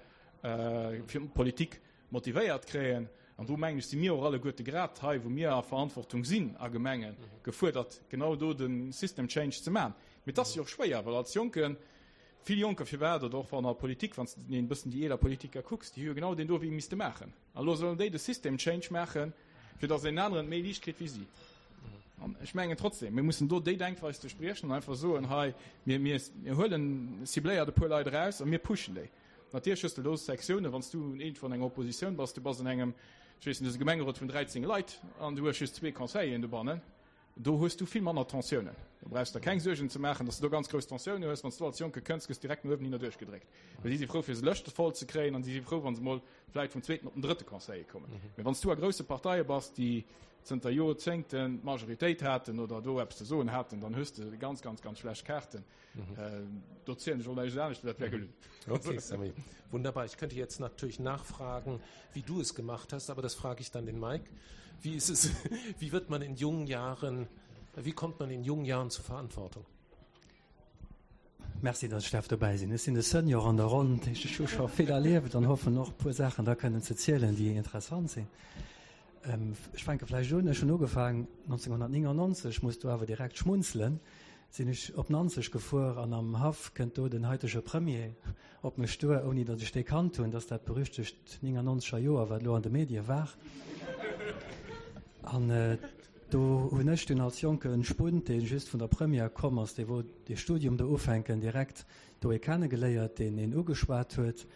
fir d'Politik motivéiert kréien. An do, mengen ech, si mir och alleguerte grad hei, wou mir a Verantwortung sinn a Gemengen, gefuerdert, genau do de System change ze maachen. Mee et ass jo och schwéier, well als Jonken, vill Jonker, firwat, oder och wann a Politik, wann s de e bëssen déi eeler Politiker kucks, déi hu jo genau deen do Wee misste maachen. An elo sollen déi de System change maachen, fir datt een aneren et méi liicht kritt wéi si. An ech mengen trotzdem, mir mussen do déi Denkweis duerchbriechen an einfach soen, hei, mir, mir, mir huelen cibléiert e puer Leit eraus a mir pushen déi. Natierlech hues de do Sektiounen, wann s du iergendwou an enger Oppositioun bass, du bass an engem, ech weess net, du hues e Gemengerot vun 13 Leit an du hues just zwee Conseilleren dobannen, do hues du vill manner Tensiounen. Do brauchs der keng Suergen ze maachen, datt s du do ganz grouss Tensiounen hues. Wann s du als Jonke kënns, gëss direkt no uewen hinner duerchgedréckt. Well si si frou, fir se Lëschte voll ze kréien an si si frou, wa se mol vläit vum zweeten op den drëtte Conseiller kommen. Mee wann s du a grousse Parteie bass, déi zënter Jorzéngten d'Majoritéit haten oder do eppes ze soen haten, dann hues de ganz, ganz, ganz schlecht Kaarten. Do zielen ech och näischt anescht, dat wär gelunn. Okay, Sammy. Wunderbar. Ich könnte jetzt natürlich nachfragen, wie du es gemacht hast, aber das frage ich dann den Mike. Wie ist es, wie wird man in jungen Jahren, wie kommt man in jungen Jahren zur Verantwortung? Merci, dass ech darf dobäi sinn. Ech sinn de Senior an der Ronn, dat heescht, ech hu scho vill erlieft an hoffen och e puer Saachen da kënnen ze zielen, déi interessant sinn. Ech fänke vläicht un, ech hunn ugefaangen 1999, muss do awer direkt schmunzelen. Sinn ech op Nanzeg gefuer an am Haff kënnt do den haitege Premier op mech duer, ouni datt ech dee kannt hunn, dass dat berüchtegt 99 er Joer, wat elo an de Medie war. An do hunn ech dunn als jonke Spunt, dee just vun der Première komm ass, dee wollt dee Studium do ufänken, direkt do ee kennegeléiert, deen een ugeschwat huet.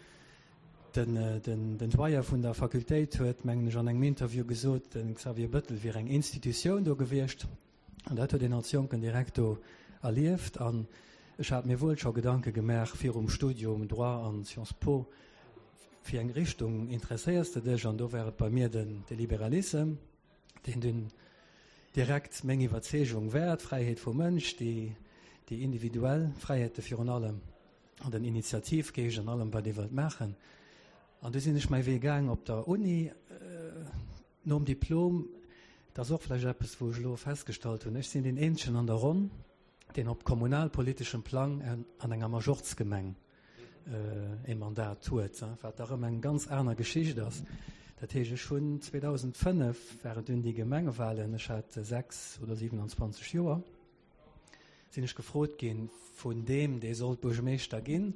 Den Doyen vun der Fakultéit huet, mengen ech, an engem Interview gesot, de Xavier Bettel wier eng Institutioun do gewiescht. An dat huet een als Jonken direkt do erlieft. An ech hat mir wuel scho Gedanke gemaach virum Studium Droit an Sciences Po, fir eng Richtung interesséiers de dech? An do war et bei mir den de Liberalissem, deen dunn direkt meng Iwwerzeegung war, d'Fräiheet vum Mënsch, déi déi individuell Fräiheete virun allem an den Initiativgeescht an allem wat ee wëllt maachen. An du sinn ech mäi Wee gaang op der Uni. Nom Diplom, dat ass och vläicht eppes, wou ech elo festgestallt hunn, ech sinn deen eenzegen an der Ronn, deen op kommunalpoliteschem Plang an enger Majorzgemeng e Mandat huet, wat da erëm eng ganz aner Geschicht ass. Dat heescht, ech hunn 2005, waren dunn déi Gemengewahlen, ech hat 6 oder 27 Joer, sinn ech gefrot ginn vun deem, dee sollt Buergermeeschter ginn,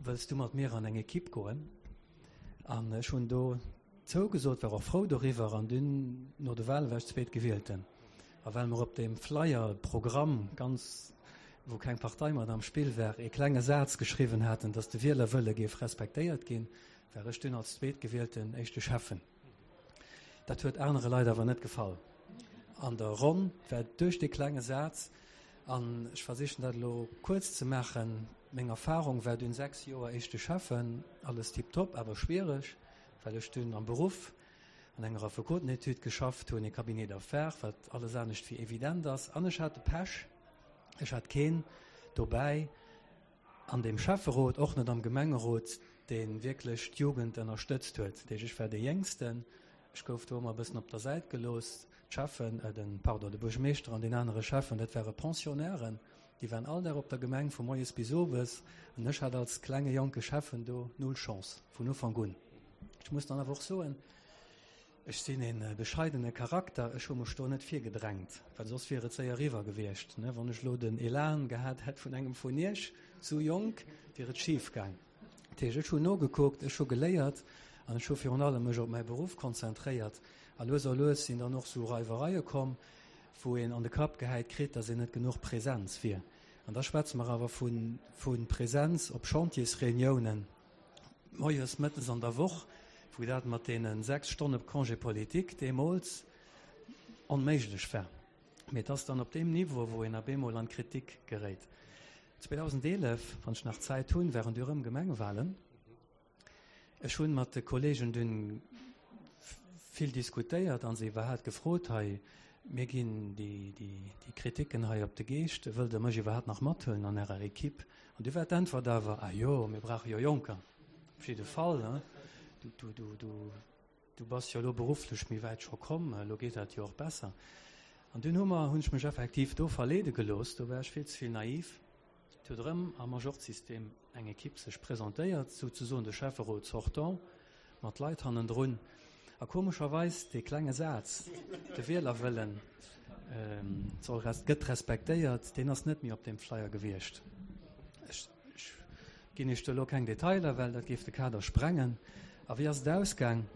Wëlls du mat mir an eng Ekipp goen? An ech hunn do zougesot, war och frou doriwwer. An dunn no de Wale war ech Zweetgewielten. A well mer op deem Flyer, Programm, ganz, wou keng Partei mat am Spill war, ee klenge Saz geschriwwen haten, datt de Wielerwëlle géif respektéiert ginn, war ech dunn als Zweetgewielten éischte Schäffen. Dat huet anere Leit awer net gefall an der Ronn, well duerch dee klenge Saz, an ech versichen dat elo kuerz ze maachen, meng Erfahrung war dunn 6 Joer éischte Schäffen, alles tiptop, awer schwiereg, well ech dunn am Beruff an enger Affekotenetüd geschafft hunn, e Cabinet d'affaires, wat alles anescht wéi evident ass, an ech hat de Pech, ech hat keen dobäi, an deem Schäfferot, och net am Gemengerot, dee wierklech d'Jugend ënnerstëtzt huet. Dat heescht, ech war dee Jéngsten, ech gouf do ëmmer e bëssen op der Säit gelooss. D'Schäffen, den, pardon, de Buergermeeschter an deen anere Schäffen, dat ware Pensionnairen, déi waren all Dag op der Gemeng vu moies bis owes, an ech hat als klenge jonke Schäffen do null Chance vun Ufank un. Ech muss dann awer och soen, Ech sinn e bescheidene Charakter, ech hu mech do net virgedrängt, well soss wier et séier eriwwer gewiescht. Wann ech elo den Elan gehat hätt vun engem vun iech, sou jonk, wier et schif gaang. Dat heescht, ech hunn nogekuckt, ech hu geléiert an ech hu virun allem mech op mäi Beruff konzentréiert. A lues a lues sinn dann och sou Reiwereie komm, wou een an de Kapp gehäit kritt, datt een net genuch Präsenz wier. An da schwätze mer awer vu Präsenz op Chantiersreuniounen. Moies, mëttes an der Woch, wou dat mat deene 6 Stonne Congé politique deemools onméiglech war. Mee et ass dann op deem Niveau, wou een op eemol an d'Kritik geréit. 2011, wann ech nach Zäit hunn, waren du erëm Gemengewahlen. Ech hunn mat de Kollegen dunn vill diskutéiert a se iwwerhaapt gefrot, hei, mir ginn déi Kritiken hei op de Geescht, wëllt Der mech iwwerhaapt nach mathuelen an Ärer Equipe? An du war d'Äntwert awer, Ah jo, mir brauche jo Jonker. Op jidde Fall, ne? Du, du, du, du, du bass jo elo berufflech méi wäit scho komm, elo geet dat jo och besser. An dunn hu mer, hunn ech mech effektiv do verleede gelooss, do war ech vill ze vill naiv. Et huet erëm am Majorzsystem eng Ekipp sech presentéiert, souzesoen de Schäfferot sortant, mat Leit hannendrun. A komescherweis, dee klenge Saz, de Wielerwëllen soll res, gëtt respektéiert, deen ass net méi op deem Flyer gewiescht. Ech, ech ginn Iech do elo keng Detailer, well dat géif de Kader sprengen. A wéi ass et ausgaang?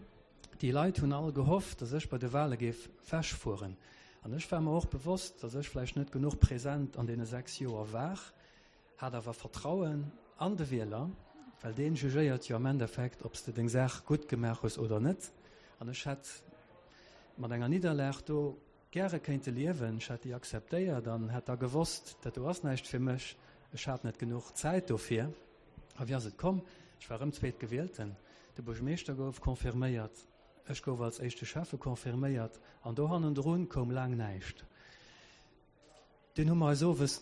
Déi Leit hunn all gehofft, datt ech bei de Wahle géif wechfueren. An ech war mer och bewosst, datt ech vläicht net genuch present an deene 6 Joer war. Hat awer Vertrauen an de Wieler, well deen jugéiert jo am Endeffekt, ob s de deng Saach gutt gemaach hues oder net. An ech hätt mat enger Nidderlag do gäre kéinte liewen. Ech hätt déi akzeptéiert an hätt da gewosst, dat do ass näischt fir mech, ech hat net genuch Zäit dofir. A wéi ass et komm? Ech war erëm Zweetgewielten, de Buergermeeschter gouf confirméiert, ech gouf als éischte Schäffe confirméiert an do hannendrun koum laang näischt. Dunn hu mer eis owes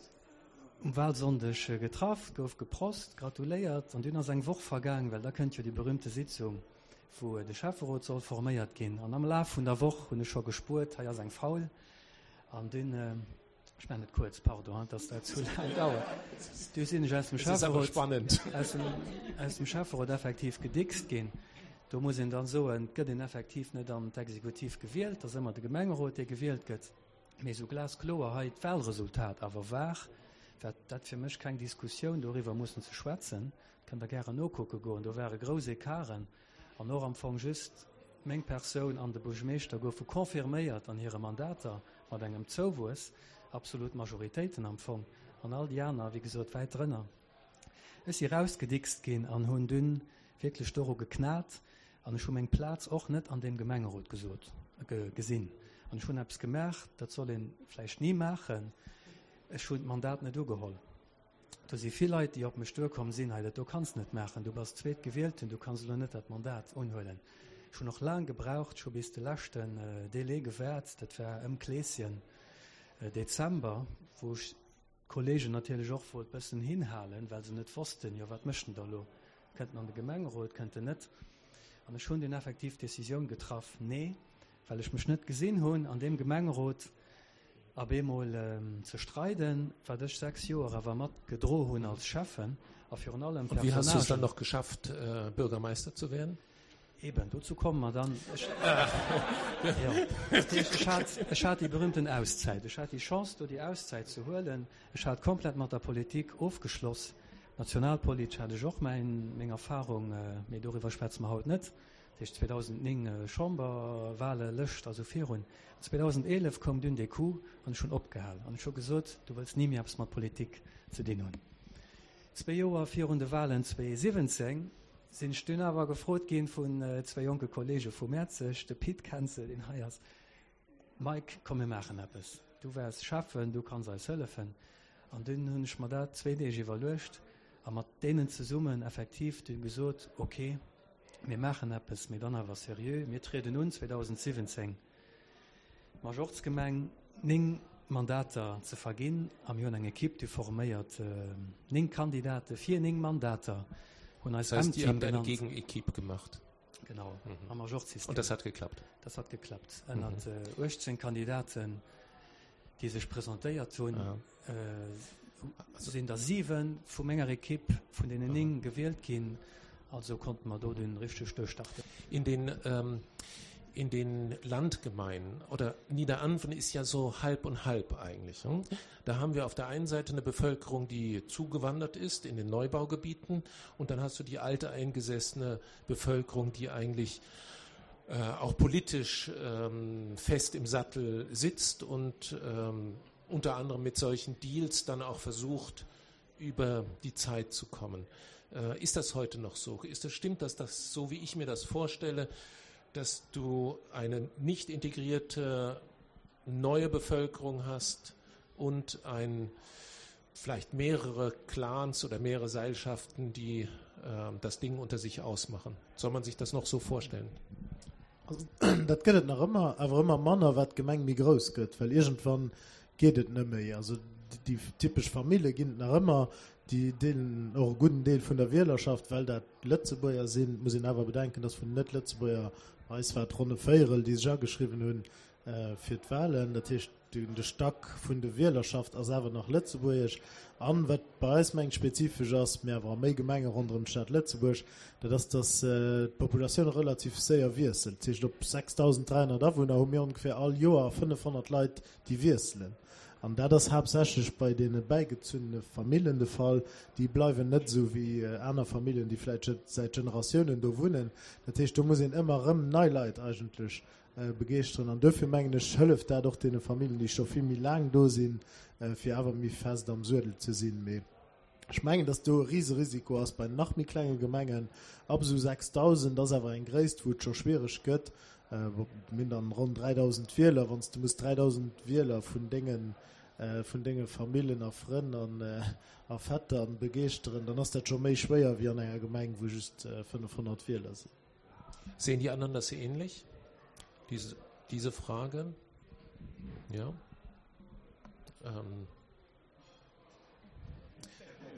um Wahlsonndeg getraff, gouf geprost, gratuléiert an dunn ass eng Woch vergaang, well da kënnt jo déi berühmte Sitzung, wou de Schäfferot soll forméiert ginn. An am Laf vun der Woch hunn ech scho gespuert, hei ass eng faul. An dunn, ech maachen et kuerz, pardon, dass dat zu laang dauert, du sinn ech aus dem Schäfferot, aus dem, aus dem Schäfferot effektiv gedickst ginn. Do muss een dann soen, et gëtt een effektiv net an d'Exekutiv gewielt, et ass ëmmer de Gemengerot, dee gewielt gëtt. Mee sou glaskloer hei d'Wahlresultat awer war. War dat fir mech keng Diskussioun, doriwwer mussen ze schwätzen. Kënnt Der gären nokucke goen. Do ware grouss Ecarten an och am Fong just meng Persoun an de Buergermeeschter goufe confirméiert an hire Mandater mat engem Zouwuess, absolut Majoritéiten am Fong, an all déi aner, wéi gesot, wäit drënner. Ech si rausgedickst ginn an hunn dunn wierklech doru geknat an ech hu meng Plaz och net an deem Gemengerot gesot, gesinn. An ech hunn eppes gemaach, dat soll ee vläicht ni maachen, ech hunn d'Mandat net ugeholl. Do si vill Leit, déi op mech duerkomm sinn, Hei, dat do kanns de net maachen, du bass Zweetgewielten, du kanns elo net dat Mandat unhuelen. Ech hunn och laang gebraucht, ech hu bis de leschten Délai gewaart, dat war ëm Kleeschen, Dezember, wou ech d'Kollegen natierlech och wollt bëssen hinhalen, well se net wossten, jo wat mécht en da elo, kënnt en an de Gemengerot, kënnt en net? An ech hunn dunn effektiv d'Decisioun getraff, Nee, well ech mech net gesinn hunn an deem Gemengerot op eemol ze streiden, wat ech 6 Joer awer mat gedro hunn als Schäffen a virun allem Und wie hast du es dann noch geschafft, Bürgermeister zu werden? Eben, dozou komme mer dann. Ech, jo, dat heescht, ech hat, ech hat déi berühmten Auszäit. Ech hat déi Chance, do déi Auszäit ze huelen. Ech hat komplett mat der Politik ofgeschloss. Nationalpolitesch hat ech och mäin, meng Erfahrung, mee doriwwer schwätze mer haut net. Dat heescht 2009 Chamberwahle, Lëscht a sou virun. 2011 koum dunn dee Coup an ech hunn opgehal an ech hu gesot, du wëlls ni méi eppes mat Politik ze dinn hunn. Zwee Joer virun de Wahlen 2017 sinn ech dunn awer gefrot ginn vun zwee jonke Kollege vu Mäerzeg, de Pit Kenzel, deen hei ass, Mike, komm mir maachen eppes, du waars Schäffen, du kanns eis hëllefen. An dunn hunn ech mer dat zwee Deeg iwwerluecht a mat deenen zesummen effektiv dunn gesot, ok, mir maachen eppes, mee dann awer seriö, mir trieden un 2017 d'Majorzgemeng 9 Mandater ze verginn a mir hunn eng Equipe déi forméiert 9 Kandidate fir 9 Mandater, hunn eis Das heißt, ihr M-Team habt eine genannt. Gegenequipe gemacht. Genau, am Majorzsystem. Und das hat geklappt? Das hat geklappt. Ënnert 18 Kandidaten, déi sech presentéiert hunn, sinn der 7 vu menger Equipe vun deenen 9 gewielt ginn. Also konnte mer do dunn richteg duerchstarten. In den, ähm, in den Landgemeinden oder Niederanven ist ja so halb und halb eigentlich. Hm? Da haben wir auf der einen Seite eine Bevölkerung, die zugewandert ist in den Neubaugebieten und dann hast du die alte eingesessene Bevölkerung, die eigentlich äh, auch politisch ähm, fest im Sattel sitzt und ähm, unter anderem mit solchen Deals dann auch versucht, über die Zeit zu kommen. Äh, ist das heute noch so? Ist das stimmt, dass das so wie ich mir das vorstelle, dass du eine nicht integrierte neue Bevölkerung hast und ein vielleicht mehrere Clans oder mehrere Seilschaften, die äh, das Ding unter sich ausmachen. Soll man sich das noch so vorstellen? Also, dat gëtt et nach ëmmer, awer ëmmer manner, wat d'Gemeng méi grouss gëtt, well iergendwann geet et net méi. Also déi typesch Famille ginn et nach ëmmer, déi deelen och e gudden Deel vun der Wielerschaft, well dat Lëtzebuerger sinn. Et muss een awer bedenken, datt vun den Net-Lëtzebuerger, bei eis war et ronn e Véierel, déi sech ageschriwwen hunn fir d'Wahlen. Dat heescht, De Stack vun de Wielerschaft ass awer nach lëtzebuergesch. An wat bei eis mengt spezifesch ass, mee awer a méi Gemenge ronderëm d'Stad Lëtzebuerg, dat ass, datt d'Populatioun relativ séier wiesselt. Dat heescht, op 6.300 Awunner hu mir ongeféier all Joer 500 Leit, déi wiesselen. An dat ass haaptsächlech bei deene bäigezunnene Famillen de Fall. Déi bleiwen net esou wéi aner Famillen, déi vläicht säit Generatiounen do wunnen. Dat heescht, do muss een ëmmer erëm nei Leit eigentlech begeeschteren. An duerfir mengen ech, hëlleft dat och deene Familljen, déi scho vill méi laang do sinn, fir awer méi fest am Suedel ze sinn. Mee ech mengen, datt do e Riserisiko ass bei nach méi klenge Gemengen. Ab esou 6.000 ass awer eng Gréisst, wou et scho schwiereg gëtt. Mir hunn dann ronn 3.000 Wieler. Wann s de muss 3.000 Wieler vun denge vun denge Famillen a Frënn an a Vettern begeeschteren, dann ass dat scho méi schwéier wéi an enger Gemeng, wou just 500 Wieler sinn. Sehen die anderen das ähnlich? Diese, diese Frage? Ja. Ähm,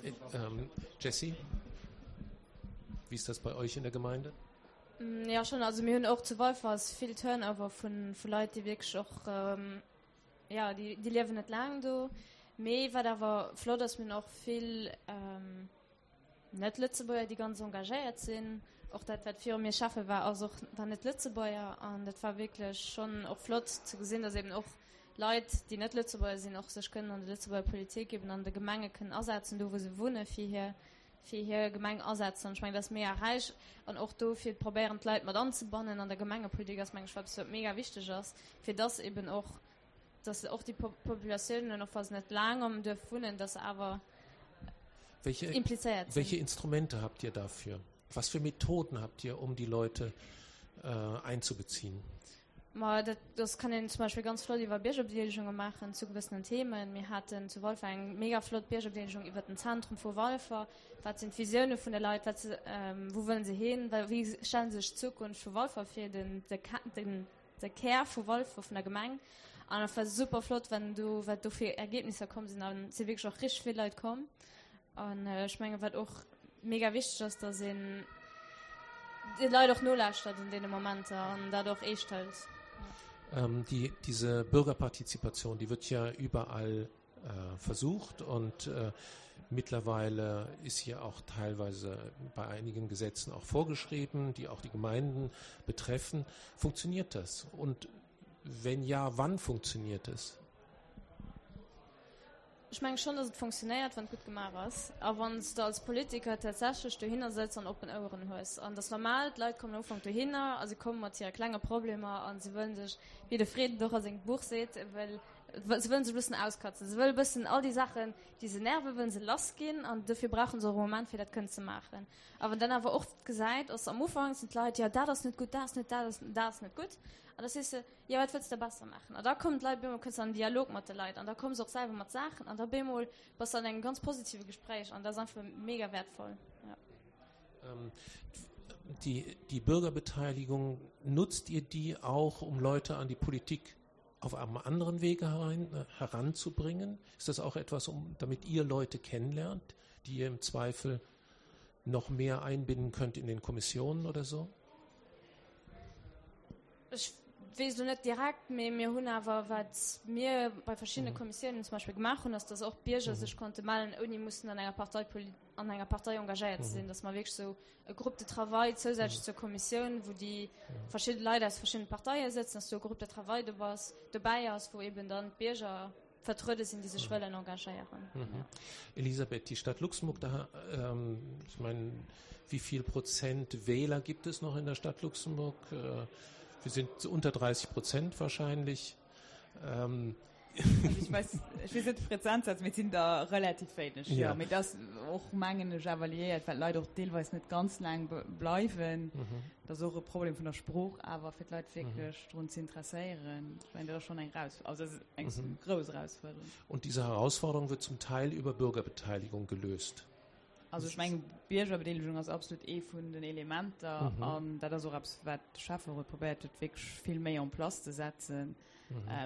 äh, ähm, Jessie, wie ist das bei euch in der Gemeinde? Mm, ja schon also mir hunn och zu Walfer vill Turnover vun vu Leit, déi wierklech och ähm, ja déi, déi liewen net laang do. Mee wat awer flott ass, mir hunn och vill ähm, Net-Lëtzebuerger, déi ganz engagéiert sinn. Och dat, wat viru mir Schäffe war, ass och, war Net-Lëtzebuerger. An dat war wierklech schonn och flott ze gesinn, dass eben och. Leit, déi net Lëtzebuerger sinn, och sech kënnen an der Lëtzebuerger Politik, eben an de Gemenge kënnen asetzen, do wou se wunne fir hir, fir hir Gemeng asetzen. An ech mengen, dat ass mega räich. An och do fir probéieren d'Leit mat anzebannen an der Gemengepolitik ass, meng ech, eppes wat mega wichteg ass, fir dass eben och, dass och déi Populatiounen, och wa se net laang am Duerf wunnen, dass se awer implizéiert sinn. Welche Instrumente habt ihr dafür? Was für Methoden habt ihr, um die Leute äh, einzubeziehen? Ma dat, dat kann een zum Beispill ganz flott iwwer Biergerbedeelegunge maachen zu gewëssenen Themen. Mir haten zu Walfer eng mega flott Biergerbedeelegung iwwer den Zentrum vu Walfer. Wat sinn d'Visioune vun de Leit? Wat, wou wëllen se hin? Wéi stellen se sech d'Zukunft vu Walfer vir, den, de, den, de Kär vu Walfer, vun der Gemeng? An et war super flott, wenn do, wat do fir Ergebnisser komm sinn. An et si wierklech och richteg vill Leit komm. An ech menge wat och mega wichteg ass, datt een de Leit och nolauschtert an deene Momenter an dat och eescht hëlt. Ähm, die, diese Bürgerpartizipation, die wird ja überall äh, versucht und äh, mittlerweile ist hier auch teilweise bei einigen Gesetzen auch vorgeschrieben, die auch die Gemeinden betreffen. Funktioniert das? Und wenn ja, wann funktioniert es? Ech mengen schonn, dass et funktionéiert, wann et gutt gemaach ass a wann s de als Politiker tatsächlech dohinner sëtz an oppen Oueren hues. An et ass normal, d'Leit kommen am Ufank dohinner a se komme mat hire klenge Problemer a se wëllen sech, wéi de Fred et och a sengem Buch seet, wëll, se wëllen sech e bëssen auskatzen. Se wëlle bëssen all déi Saachen, déi se nerven, wëllen se lassginn an dofir brauche se och e Moment, fir dat kënnen ze maachen. A wann dann awer och gesäit, ass am Ufank sinn d'Leit, jo dat ass net gutt, dat ass net, dat ass, dat ass net gutt. An da sees de, Jo, wat wëlls de besser maachen? An da kommen d'Leit, bemol kënns de an den Dialog mat de Leit an da komme se och selwer mat Saachen an da bemol bass de an engem ganz positive Gespréich an dat ass einfach mega wäertvoll. Ja. Ähm, die, die Bürgerbeteiligung, nutzt ihr die auch, um Leute an die Politik auf einem anderen Wege herein, äh, heranzubringen? Ist das auch etwas, um, damit ihr Leute kennenlernt, die ihr im Zweifel noch mehr einbinden könnt in den Kommissionen oder so? Ech weess elo net direkt, mee mir hunn awer, wat mir bei verschiddene Kommissiounen zum Beispill gemaach hunn, ass, dass och d'Bierger sech konnte mellen, ouni mussen an enger Partei, an enger Partei engagéiert ze sinn, dass mer wierklech esou e Groupe de travail zousätzlech zur Kommissioun, wou déi verschidde Leit aus verschiddene Parteie sëtzen, dass do e Groupe de travail dobäi ass, wou eben dann d'Bierger vertruede sinn, déi sech wëllen engagéieren. Mhm. Elisabeth, die Stadt Luxemburg, da, ähm, ich meine, wie viel Prozent Wähler gibt es noch in der Stadt Luxemburg? Äh, wir sind unter 30 Prozent wahrscheinlich. Ähm, also ich weiß, ich weiß net Prozentsatz, mir sinn da relativ wéineg. Ja. Ja, mee das och mengen ech awer liéiert, well d'Leit och deelweis net ganz laang bleiwen. Mhm. Dat ass och e Problem vun der Sprooch, awer fir d'Leit wierklech mhm. drun ze interesséieren. Ich meine, dat ass schon eng Raus also das ist eng mhm. groß Herausforderung. Und diese Herausforderung wird zum Teil über Bürgerbeteiligung gelöst. Also ech mengen, Biergerbedeelegung ass absolut ee vun den Elementer an dat ass och eppes, wat de Schäfferot probéiert huet, wierklech vill méi en place ze setzen.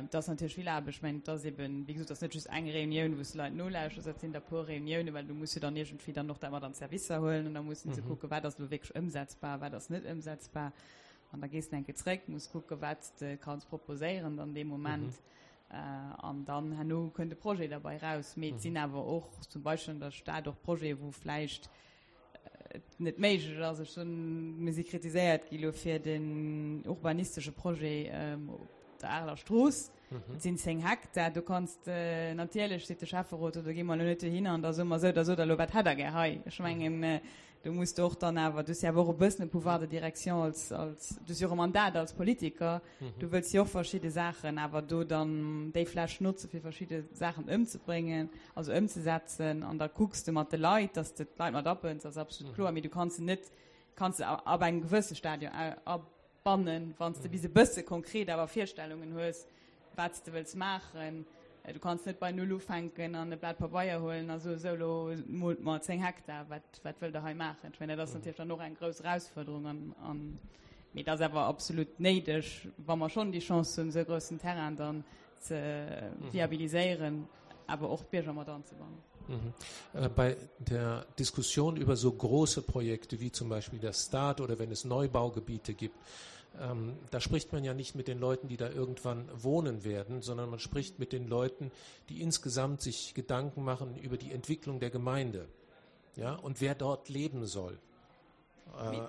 Et ass natierlech vill Aarbecht. Ech mengen, et ass eben, wéi gesot, et ass net just eng Reunioun, wou s de Leit nolauschters, dat sinn der e puer Reuniounen, well du muss jo dann iergendwéi dann och dat mat an d'Servicer huelen an da mussen se kucken, wat ass elo wierklech ëmsetzbar, wat ass net ëmsetzbar. An da gees de eng Kéier zréck, muss kucken, wat s de kanns proposéieren dann dee Moment. An dann herno kënnt e Projet derbei raus. Mee et sinn awer och zum Beispill an der Stad och Projete, wou vläicht et net méiglech ass. Ech soen, mir si kritiséiert gi lo fir den urbanistesche Projet op der Areler Strooss. Dat sinn 10 Hektar. Do kanns de natierlech, seet de Schäfferot, do gi mer elo net dohinner an da soe mer esou, da sot der elo, wat hätt der gär hei? Ech mengen, Do muss de och dann awer, du hues jo awer och e bëssen e Pouvoir de direction als, als, du hues jo och e Mandat als Politiker, du wëlls jo och verschidde Saachen awer do dann déi Fläch notze fir verschidde Saachen ëmzebréngen, also ëmzesetzen an da kucks de mat de Leit, dass de d'Leit mat abënns, ass absolut kloer, mee du kanns se net, kanns se ab engem gewësse Stadion bannen, wann s de bis e bësse konkret awer Virstellungen hues, wat s de wëlls maachen. Du kanns net bei Null ufänken an e Blat Pabeier huelen a soen, Esou, elo moolt mer 10 Hektar, wat, wat wëllt Der hei maachen? Ech mengen, dat ass natierlech dann och eng grouss Erausfuerderung an, an, mee et ass awer absolut néideg, wa mer schonn déi Chance hunn, esou e groussen Terrain dann ze viabiliséieren, awer och d'Bierger mat anzebannen. Mhm. Äh, bei der Diskussion über so große Projekte wie zum Beispiel der Staat oder wenn es Neubaugebiete gibt, ähm, da spricht man ja nicht mit den Leuten, die da irgendwann wohnen werden, sondern man spricht mit den Leuten, die insgesamt sich Gedanken machen über die Entwicklung der Gemeinde ja, und wer dort leben soll. Äh,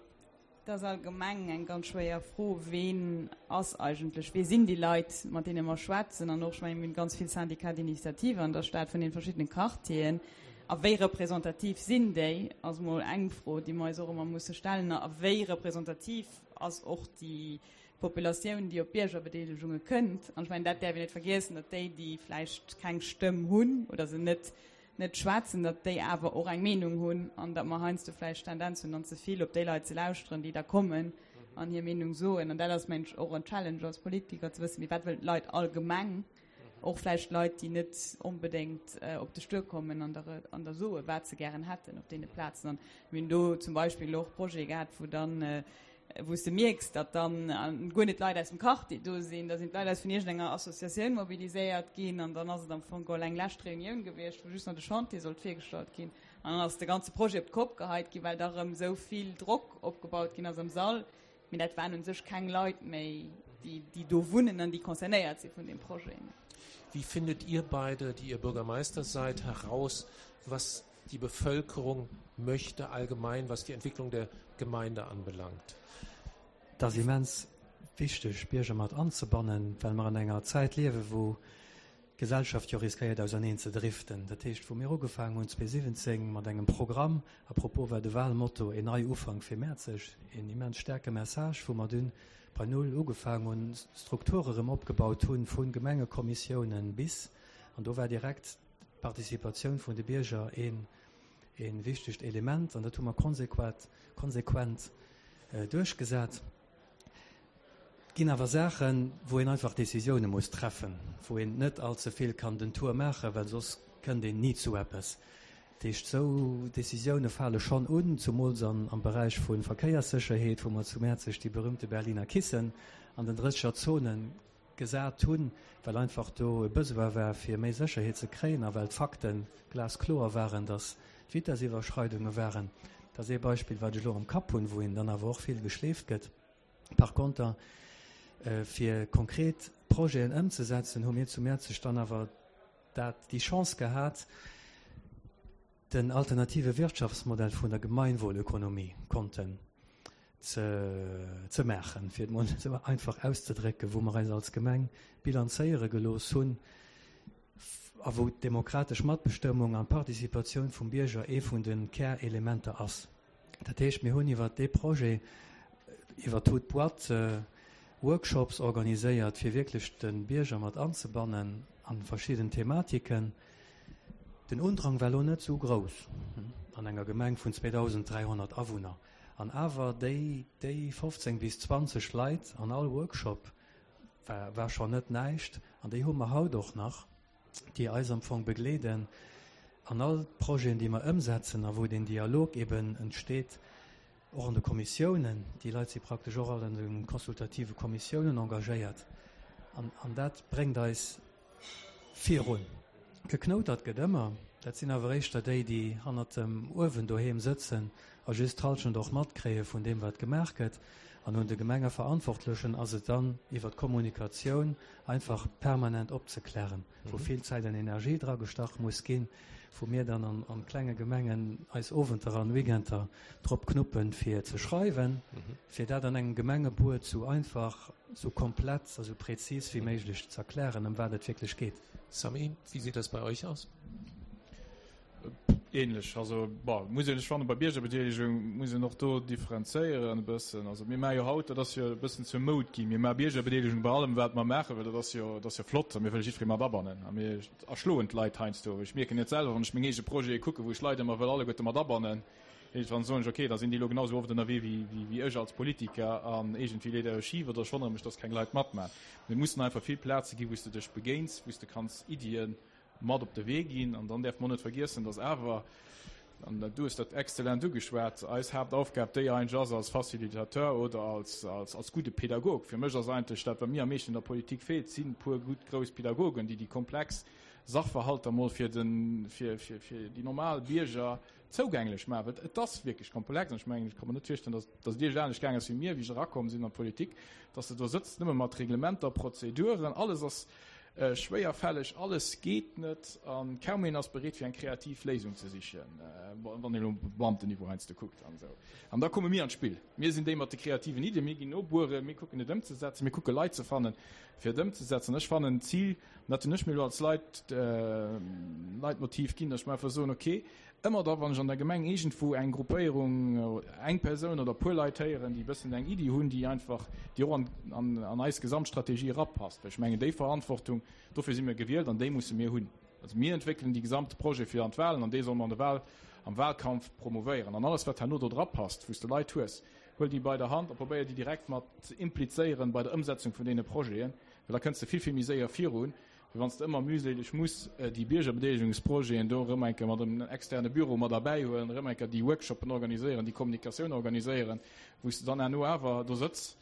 Et ass allgemeng eng ganz schwéier Fro, Ween ass eigentlech, wee sinn déi Leit, mat deene mer schwätzen? An och, ech mengen, mir hunn ganz vill Syndicats d'initiative an der Stad vun den verschiddenen Quartieren. A wéi representativ sinn déi, ass mol eng Fro, déi mer eis och ëmmer musse stellen. A wéi representativ ass och déi Populatioun, déi op Biergerbedeelegunge kënnt? An ech mengen, dat däerf een net vergiessen, datt déi, déi vläicht keng Stëmm hunn oder se net net schwätzen, datt déi awer och eng Meenung hunn an datt mer heiansdo vläicht d'Tendenz hunn, dann ze vill op déi Leit ze lauschteren, déi da kommen an hir Meenung soen. An dat ass, mengen ech, och en Challenge als Politiker, ze wëssen, mee wat wëllen d'Leit allgemeng, och vläicht Leit, déi net onbedéngt op de Stuer kommen an der an der soen, wat se gären hätten op deene Plazen. An mir hunn do zum Beispill och Projete gehat, wou dann wou s de mierks, datt dann guer net d'Leit aus dem Quartier do sinn, da sinn d'Leit aus vun iergendenger Associatioun mobiliséiert ginn an dann ass et am Fong geholl eng lescht Reunioun gewiescht, wou just nach de Chantier sollt virgestallt ginn an dann ass de ganze Projet op d'Kopp geheit ginn, well da rëm esou vill Drock opgebaut ginn ass am Sall. Mee dat waren u sech keng Leit méi, déi, déi do wunnen an déi concernéiert si vun deem Projet. Wie findet ihr beide, die ihr Bürgermeister seid, heraus, was die Bevölkerung möchte allgemein, was die Entwicklung der Gemeinde anbelangt? Et ass immens wichteg, d'Bierger mat anzebannen, well mer an enger Zäit liewen, wou d'Gesellschaft jo riskéiert auserneen ze driften. Dat heescht, wou mir ugefaangen hunn 2017 mat engem Programm, à propos war de Wahlmotto Een Neiufank fir Mäerzeg, een immens staarke Message, wou mer dunn bei Null ugefaangen hunn, Strukture rëm opgebaut hunn, vu Gemengekommissiounen bis, an do war direkt d'Participatioun vun de Bierger een een wichtegt Element, an dat hu mer konsequat, konsequent duerchgesat. Et ginn awer Saachen, wou een einfach Décisioune muss treffen, wou een net allze vill kann den Tour maachen, well soss kënnt een ni zu eppes. Dat heescht, esou Décisioune fale schonn un, zumools an am Beräich vu Verkéierssécherheet, wou mer zu Mäerzeg déi berühmte Berliner Kissen an den 30er Zonen gesat hunn, well einfach do e Besoin war, fir méi Sécherheet ze kréien a well d'Fakte glaskloer waren, dass d'Vitessiwwerschreidunge waren. Dat ass ee Beispill, wat ech elo am Kapp hunn, wou een dann awer och vill geschleeft gëtt. Par konter, fir konkret Projeten ëmzesetzen, hu mir zu Mäerzeg dann awer dat, déi Chance gehat, den alternative Wirtschaftsmodell vun der Gemeinwohlökonomie konnten ze ze maachen, fir et mol esou einfach auszedrécken, wou mer eis als Gemeng bilanzéiere gelooss hunn a wou d'demokratesch Matbestëmmung an d'Participatioun vum Bierger ee vun de Kärelementer ass. Dat heescht, mir hunn iwwert dee Projet, iwwert d'Haute Boîte, Workshops organiséiert, fir wierklech de Bierger mat anzebannen a verschidden Thematiken. Den Undrang war elo net esou grouss an enger Gemeng vun 2.300 Awunner. An awer déi, déi 15 bis 20 Leit an all Workshop war, war schonn net näischt. An déi hu mer haut och nach, déi eis am Fong begleeden an all d'Projeten, déi mer ëmsetzen a wou deen Dialog eben entsteet, och an de Kommissiounen. Déi Leit si praktesch och all an de consultative Kommissiounen engagéiert. An, an dat bréngt eis Virun. Geknoutert gëtt ëmmer. Dat sinn awer éischter déi, déi hannert dem Uewen doheem sëtzen a just d'Halschent och matkréie vun deem, wat gemaach gëtt. An un de Gemengeverantwortlechen ass et dann, iwwer d'Kommunikatioun einfach permanent opzeklären, wou vill Zäit an Energie dragestach muss ginn, wou mir dann an klenge Gemengen eis Owenter an Weekender drop knuppen, fir ze schreiwen, fir dat an engem Gemengebuet sou einfach, sou komplett a sou präzis wéi méiglech z'erklären, ëm wat et wierklech geet. Samy, wie sieht das bei euch aus? Ähnlech. Also, bon, muss een, ech fannen, bei Biergerbedeelegung muss een och do differenzéieren e bëssen. Also mir maache jo haut, dat ass jo e bëssen zur Moud ginn, mir maache Biergerbedeelegung bei allem, wat mer maachen, well dat ass jo, dat ass jo flott a mir wëlle jiddweree mat abannen a mir erschloen d'Leit heiansdo. Ech mierken et selwer, wann ech meng eege Projete kucken, wou ech Leit ëmmer wëll alleguerte mat abannen. Iergendwann soen ech, ok, da sinn déi elo genau esou oft ënnerwee wéi ech als Politiker an iergendwéi leet dat schif oder ech wonnere mech, dass keng Leit matmaachen. Et mussen einfach vill Plaze ginn, wou s de dech begéins, wou s de kanns Iddie mat op de Wee ginn. An dann däerfe mer och net vergiessen, dass awer, an du hues dat exzellent ugeschwat, eis Haaptaufgab déi eigentlech ass als Facilitateur oder als gudde Pädagog. Fir mech ass eigentlech dat, wat mir am meeschten an der Politik feelt, sinn e puer gutt grouss Pädagogen, déi déi komplex Sachverhalter mol fir déi normal Bierger zougänglech maachen, well et ass wierklech komplex an ech mengen, ech ka mer net virstellen, dass dass et Iech anescht gaang ass wéi mir, wéi ech erakomm sinn an d'Politik, dass de do sëtzt nëmme mat Reglementer, Prozeduren, alles ass. Schwéierfälleg, alles geet net a kaum een ass bereet fir eng kreativ Léisung ze sichen, wann een elo op Beamtenniveau heiansdo kuckt an esou. An da komme mir an d'Spill. Mir sinn déi mat de kreativen Iddien, mir ginn nobueren, mir kucken et ëmzesetzen, mir kucke Leit ze fannen, fir et ëmzesetzen. Ech fannen d'Zil, an dat hunn ech mir elo als Leit, Leitmotiv ginn, datt ech mer einfach soen, okay, Ëmmer da wann ech an der Gemeng iergendwou eng Gruppéierung, eng Persoun oder e puer Leit héieren, déi e bëssen eng Iddi hunn, déi einfach, déi och an, an, an eis Gesamtstrategie erapasst, well ech mengen déi Verantwortung, dofir si mir gewielt an déi musse mir hunn. Also mir entwéckelen déi gesamte Projet fir an d'Wahlen an dee solle mer an de Wahl, am Wahlkampf promouvéieren. An alles wat herno do drapasst, wou s de Leit hues, huel déi bei der Hand a probéier déi direkt mat ze implizéieren bei der Ëmsetzung vun deene Projeten, well da kënns de vill, vill méi séier virun, Wéi wann s de ëmmer mühseleg muss déi Biergerbedeelegungsprojeten do erëm eng Kéier mat engem externe Büro mat erbäihuelen, erëm eng Kéier déi Workshoppen organiséieren, déi Kommunikatioun organiséieren, wou s de dann herno awer do sëtz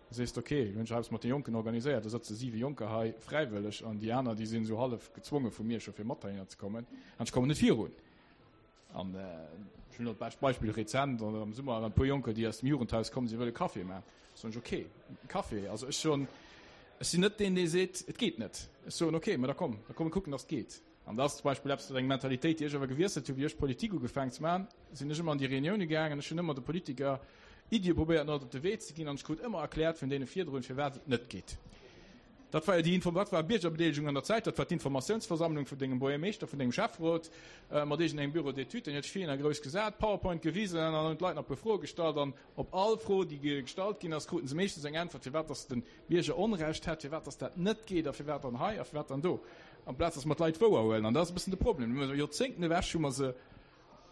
a sees, ok, elo hunn ech eppes mat de Jonken organiséiert, do sëtze siwe Jonker hei fräiwëlleg an déi aner, déi sinn esou hallef gezwonge vu mir scho fir mat heihinner ze kommen an ech kommen net virun. An ech hunn elo d'bescht Beispill rezent, am Summer waren e puer Jonker, déi aus dem Jugendhaus kommen, si wëlle Café maachen. Soen ech, okay, Café. Also ech soen, ech sinn net deen, dee seet, et geet net. Ech soen, okay, mä da komm, da komm mir kucken, datt et geet. An dat ass zum Beispill eppes, dat eng Mentalitéit, déi ech awer gewiesselt hunn, wéi ech Politik ugefaangen ze maachen, sinn ech ëmmer an déi Reunioune gaangen, ech hunn ëmmer de Politiker Iddie probéiert mat op de Wee ze ginn an ech krut ëmmer erkläert vun deene virdrun, firwat et net geet. Dat war jo déi Info, dat war Biergerbedeelegung an der Zäit, dat war d'Informatiounsversammlung vun dengem Buergermeeschter, vun dengem Schäfferot, mat iergendengem Bureau d'études, deen huet sech vir a grouss gesat, PowerPoint gewisen an dann hunn d'Leit nach e puer Froe gestallt an op all Fro, déi gestallt ginn ass, kruten se meeschtens eng Äntwert, firwat dass de Bierger Onrecht hätt, firwat dass dat net geet a firwat dann hei a firwat dann do, amplaz dass mer d'Leit wouerhuelen. An dat ass e bëssen de Problem. Joerzéngten ewech hu mer se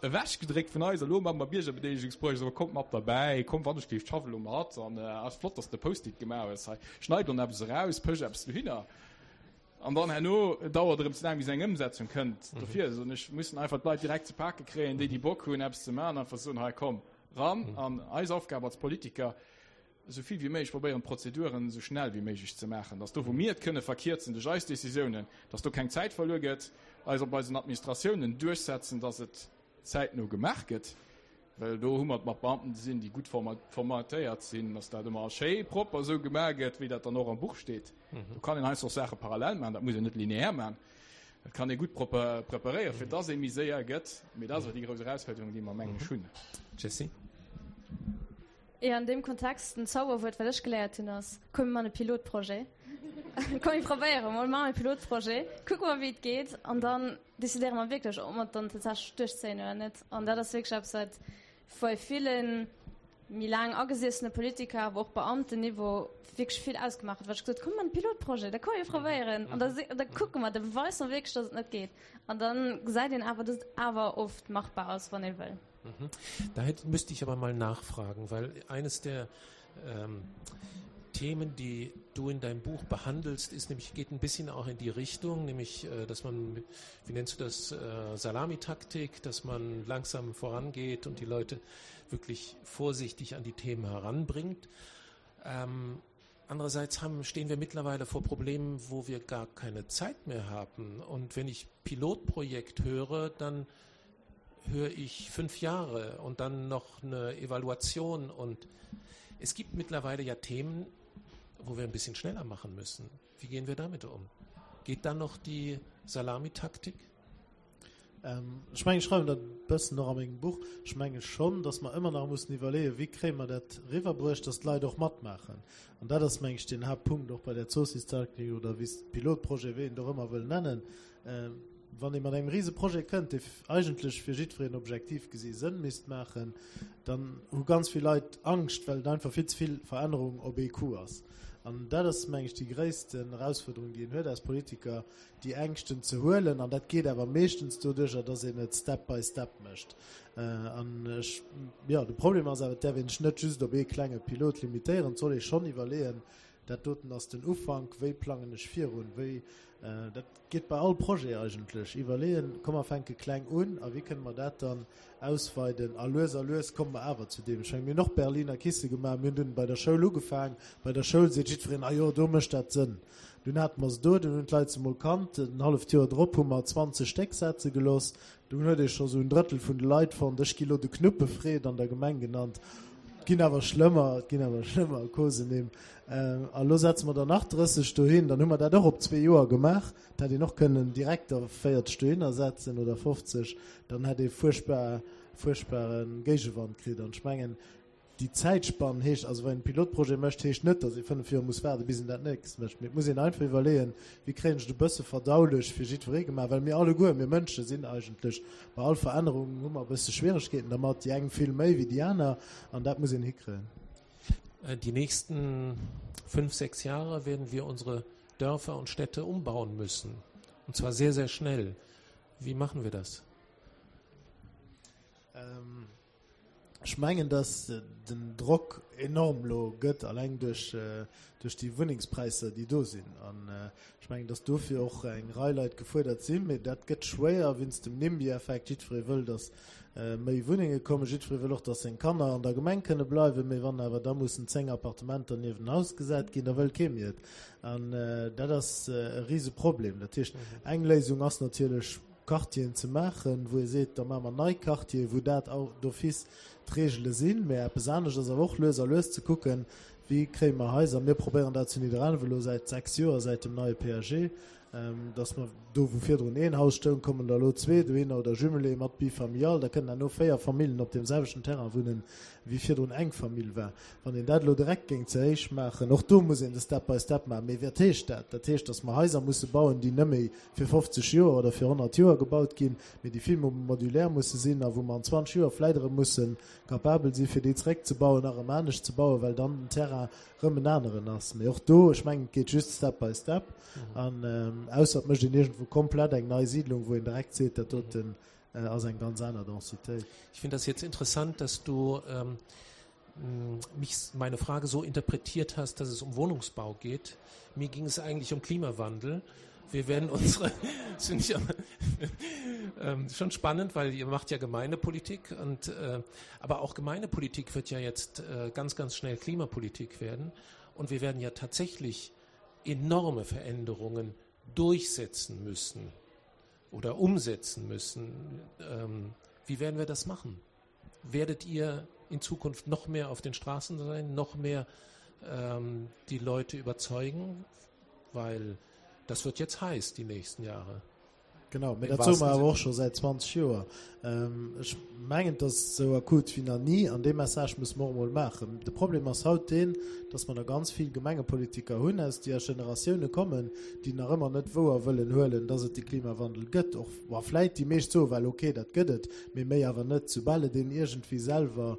Ewechgedréckt vun eis, elo maache mer Biergerbedeelegungsprojets, awer kommt mat derbäi, kommt wann ech géif, schaff elo mat an ass flott, dass de Post-it gemaach hues hei, schneid dann eppes eraus, pësch eppes dohinner an dann herno dauert erëm ze laang bis eng Ëmsetzung kënnt. Dofir soen ech, mussen einfach d'Leit direkt ze pake kréien, déi déi Bock hunn eppes ze maachen, einfach soen, hei komm ran an eis Aufgab als Politiker, esou vill wéi méiglech probéieren, d'Prozeduren esou schnell wéi méiglech ze maachen, dass do, wou mir et kënne verkierzen duerch eis Décisiounen, dass do keng Zäit verluer gëtt, eis op eisen Administratiounen duerchsetzen, dass et zäitno gemaach gëtt, well do hu mer et mat Beamten ze sinn, déi gutt formatéiert sinn, dass dat ëmmer schéi propper esou gemaach gëtt, wéi dat dann och am Buch steet. Do kann een heiansdo och Saache parallel maachen, dat muss een net lineaire maachen. Dat kann ee gutt propper preparéieren, fir dass ee méi séier gëtt. Mee dat ass awer déi grouss Erausfuerderung, déi mer, mengen ech, hunn. Jessy? Jo, an deem Kontext, den Zauberwuert, wat ech geléiert hunn, ass, Komm mir man e Pilotprojet. Komm mir probéiere mol, maache e Pilotprojet, kucke mer, wéi et geet, an dann decidéiere mer wierklech, ob mer et dann tatsächlech duerchzéien oder net. An dat ass wierklech eppes, wat bei ville méi laang agesiessene Politiker, awer och Beamtenniveau wierklech vill ausgemaach huet, wat ech gesot hunn, Komm mir man e Pilotprojet, da komm mir probéieren an da, da kucke mer, da beweise mer wierklech, dass et net geet. An da gesäit een awer, dass et awer oft machbar ass, wann ee wëll. Mhm. Da hätte, müsste ich aber mal nachfragen, weil eines der ähm, Themen, die du in deinem Buch behandelst, ist nämlich geht ein bisschen auch in die Richtung, nämlich äh, dass man, wie nennst du das, äh, Salamitaktik, dass man langsam vorangeht und die Leute wirklich vorsichtig an die Themen heranbringt. Ähm, andererseits haben, stehen wir mittlerweile vor Problemen, wo wir gar keine Zeit mehr haben. Und wenn ich Pilotprojekt höre, dann höre ich fünf Jahre und dann noch eine Evaluation. Und es gibt mittlerweile ja Themen, wo wir ein bisschen schneller machen müssen. Wie gehen wir damit um? Geht dann noch die Salamitaktik? Ähm, ech mengen, ech schreiwen dat e bëssen och a mengem Buch, ech menge schonn, datt mer ëmmer nach mussen iwwerleeën, wéi kréie mer dat eriwwerbruecht, datt d'Leit och matmaachen. An dat ass, meng ech, den Haaptpunkt och bei där Zoossistaktik oder wéi s Pilotprojet, wéi een et och ëmmer wëll nennen. Wann ee mat engem Riseprojet kënnt, dee eigentlech fir jiddwereen objektiv gesi Sënn misst maachen, dann hu ganz vill Leit Angscht, well et einfach vill ze vill Verännerung op ee Coup ass. An dat ass, meng ech, déi gréissten Erausfuerderung, déi een huet als Politiker, déi Ängschten ze huelen. An dat geet awer meeschtens doduercher, dass een et step by step mécht. An ech, jo, de Problem ass awer, et däerf een sech net just op ee klenge Pilot limitéieren. Et soll ee schonn iwwerleeën, Dat doten ass den Ufank, wéi plangen ech virun, wéi, dat geet bei all Projet eigentlech, iwwerleeën, komm mer fänke kleng un a wéi kënne mer dat dann ausweiden a lues a lues komme mer awer zu deem. Ech menge mir hunn och Berliner Kisse gemaach, mir hunn dunn bei der Schoul ugefaang, bei der Schoul seet jiddwereen, ah jo, do mécht dat Sënn. Dunn hate mer se do, dunn hunn d'Leit se mol kannt, en halleft Joer drop hu mer 20 Stéck setze gelooss, Dunn huet ee scho sou en Drëttel vun de Leit fonnt. Ech gi lo de Knuppefred an der Gemeng genannt. Et ginn awer schlëmmer, et ginn awer schlëmmer Kosenim. A lo setze mer der nach 30 dohin, dann hu mer dat och op zwee Joer gemaach. Et hätt een och kënnen direkt der 40 dohinner setzen oder 50, dann hätt ee fuerchtbar, fuerchtbare Géigewand kritt. An ech mengen, déi Zäitspann heescht, also wann een e Pilotprojet mécht, heescht net, datt ee 5 Joer muss waarden, bis een dat nächst mécht. Mee et muss een einfach iwwerleeën, wéi kréien ech et e bësse verdaulech fir jiddweree gemaach, well mir alleguer, mir Mënsche sinn eigentlech bei all Verännerung hu mer e bësse Schwieregkeeten dermat, déi eng vill méi wéi déi aner, an dat muss een hikréien. Die nächsten fünf, sechs Jahre werden wir unsere Dörfer und Städte umbauen müssen. Und zwar sehr, sehr schnell. Wie machen wir das? Ähm, Ech mengen, datt den Drock enorm elo gëtt, alleng duerch déi Wunnengspräisser, déi do sinn. An ech mengen, datt dofir och eng Rei Leit gefuerdert sinn. Mee dat gëtt schwéier wéinst dem NIMBY-Effekt. Jiddweree wëll, datt méi Wunnenge kommen. Jiddweree wëll och, datt seng Kanner an der Gemeng kënne bleiwen. Mee wann awer da mussen 10 Appartementer nieft en Haus gesat ginn, da wëll kee méi et. An dat ass e Riseproblem. Dat heescht, eng Léisung ass natierlech, Quartieren ze maachen, wou ee seet, da maache mer nei Quartieren, wou dat d'office d'Regele sinn. Mä eppes anescht ass awer och lues a lues ze kucken, wéi kréie mer Haiser. Mir probéieren dat zu Nidderaanwen elo säit 6 Joer, säit dem neie PAG, dass mer do, wou virdrun een Haus stoung, kommen der elo zwee dohinner oder Jumelé mat Bifamilial. Da kënnen herno 4 Famillen op deem selwechten Terrain wunnen, wéi virdrun eng Famill war. Wann een dat elo direkt géing ze héich maachen, och do muss een de Step by Step maachen. Mee wat heescht dat? Dat heescht, dass mer Haiser musse bauen, déi net méi fir 50 Joer oder fir 100 Joer gebaut ginn, mee déi vill méi modulär musse sinn a wou mer an 20 Joer vläit erëm musse capabel si fir déi zeréckzebauen a erëm anescht ze bauen, well dann den Terrain erëm en aneren ass. Mee och do, ech mengen, et geet just step by step an ausser et mécht een iergendwou komplett eng nei Siedlung, wou een direkt seet, dat doten ass eng ganz aner Densitéit. Ich finde das jetzt interessant, dass du ähm, mich meine Frage so interpretiert hast, dass es um Wohnungsbau geht. Mir ging es eigentlich um Klimawandel. Wir werden unsere finde ich ähm, schon spannend, weil ihr macht ja Gemeindepolitik und äh, aber auch Gemeindepolitik wird ja jetzt äh, ganz ganz schnell Klimapolitik werden und wir werden ja tatsächlich enorme Veränderungen durchsetzen müssen oder umsetzen müssen. Ähm, wie werden wir das machen? Werdet ihr in Zukunft noch mehr auf den Straßen sein, noch mehr ähm, die Leute überzeugen, weil das wird jetzt heiß die nächsten Jahre. Genau, mee dat soe mer awer och scho säit 20 Joer. Ech mengen, et ass esou akut wéi nach ni an dee Message musse mer och emol maachen. De Problem ass haut deen, datt mer nach ganz vill Gemengepolitiker hunn, aus déi aus Generatioune kommen, déi nach ëmmer net wouer wëllen huelen, datt et de Klimawandel gëtt. Och wa vläit déi meescht soe well, okay, dat gëtt et, mee méi awer net. Soubal et een iergendwéi selwer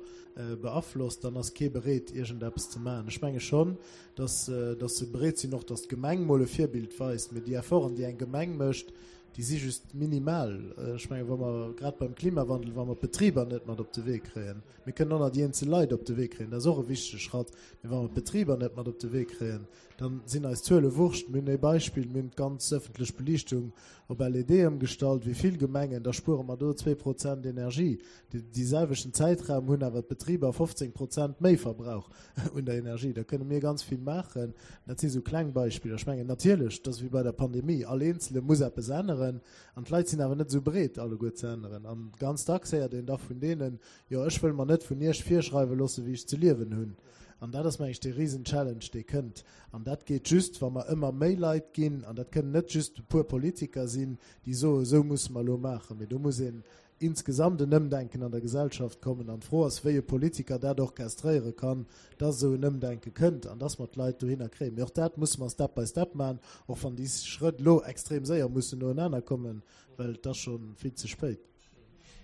beaflosst, dann ass kee bereet, iergendeppes ze maachen. Ech menge schonn, dass, dass se bereet sinn och, dass d'Gemeng mol e Virbild weist. Mee déi Efforten, déi eng Gemeng mécht, déi si just minimal. Ech mengen, wa mer grad beim Klimawandel, wa mer d'Betriber net mat op de Wee kréien, mir kënnen och nach déi eenzel Leit op de Wee kréien, dat ass och e wichtege Schratt, mee wa mer d'Betriber net mat op de Wee kréien, da sinn eis Zuele Wurscht. Mir hunn ee Beispill, mir hunn d'ganz ëffentlech Beliichtung op LED ëmgestallt, wéi vill Gemengen, da spuere mer do 2 Prozent Energie. Dee selwechten Zäitraum hunn awer d'Betriber 15 Prozent méi Verbrauch un der Energie. Da kënne mir ganz vill maachen. Dat si sou kleng Beispiller. Ech mengen natierlech, et ass wéi bei der Pandemie, all Eenzele muss eppes änneren an d'Leit sinn awer net esou bereet alleguer ze änneren. An ganz dacks héiert een da vun deenen, jo ech wëll mer net vun Iech virschreiwe loosse wéi ech ze liewen hunn. An dat ass meng ech dee Risen-Challenge dee kënnt. An dat geet just wa mer ëmmer méi Leit ginn. An dat kënnen net just e puer Politiker sinn, déi soe sou musse mer elo maachen, mee do muss een insgesamt en Ëmdenken an der Gesellschaft kommen. An d'Fro ass, wéi e Politiker dat orchestréiere kann, dass esou en Ëmdenke kënnt an dass mer d'Leit dohinner kréien. Mee och dat musse mer step by step maachen, och wann déi Schrëtt elo extrem séier mussen noenaner kommen, well et ass scho vill ze spéit.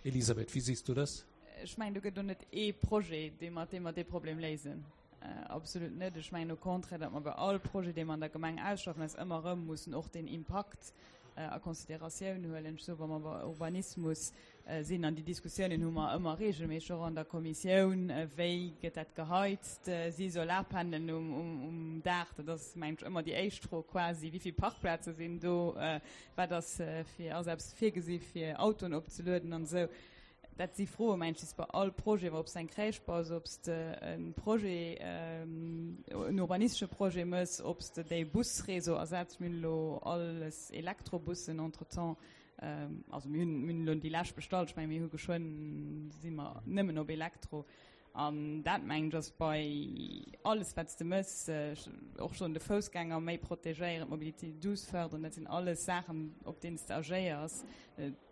Elisabeth, wie siehst du das? Ech mengen, do gëtt elo net ee Projet, dee mat deem mer dee Problem léisen. Absolut net. Ech mengen au contraire, datt mer bei all Projet, dee mer an der Gemeng ausschaffen, eis ëmmer erëm mussen och deen Impakt a Consideratioun huelen. Ech soe wa mer bei Urbanismus sinn, an déi Diskussiounen hu mer ëmmer regelméisseg och an der Kommissioun, wéi gëtt dat geheizt, si Solarpanelen um Daach, dat ass mengen ech ëmmer déi éischt Fro quasi, wéi vill Parkplaze sinn do, wat ass fir, ass eppes virgesi fir Autoen opzelueden an esou. Dat si Froen, mengen ech, déi s de bei all Projet, ob s de eng Crèche baus, ob s de e Projet, en urbanistesche Projet méchs, ob s de déi Busréseau ersetz. Mir hunn elo alles Elektrobussen entretemps. Also mir hunn, mir hunn elo déi lescht bestallt. Ech mengen, mir hu geschwënn, si mer nëmmen op Elektro. An dat, mengen ech, ass bei alles, wat s de méchs, och schonn de Foussgänger méi protegéieren, d'Mobilité douce fërderen, dat sinn alles Saachen, op deenen s de agéiers,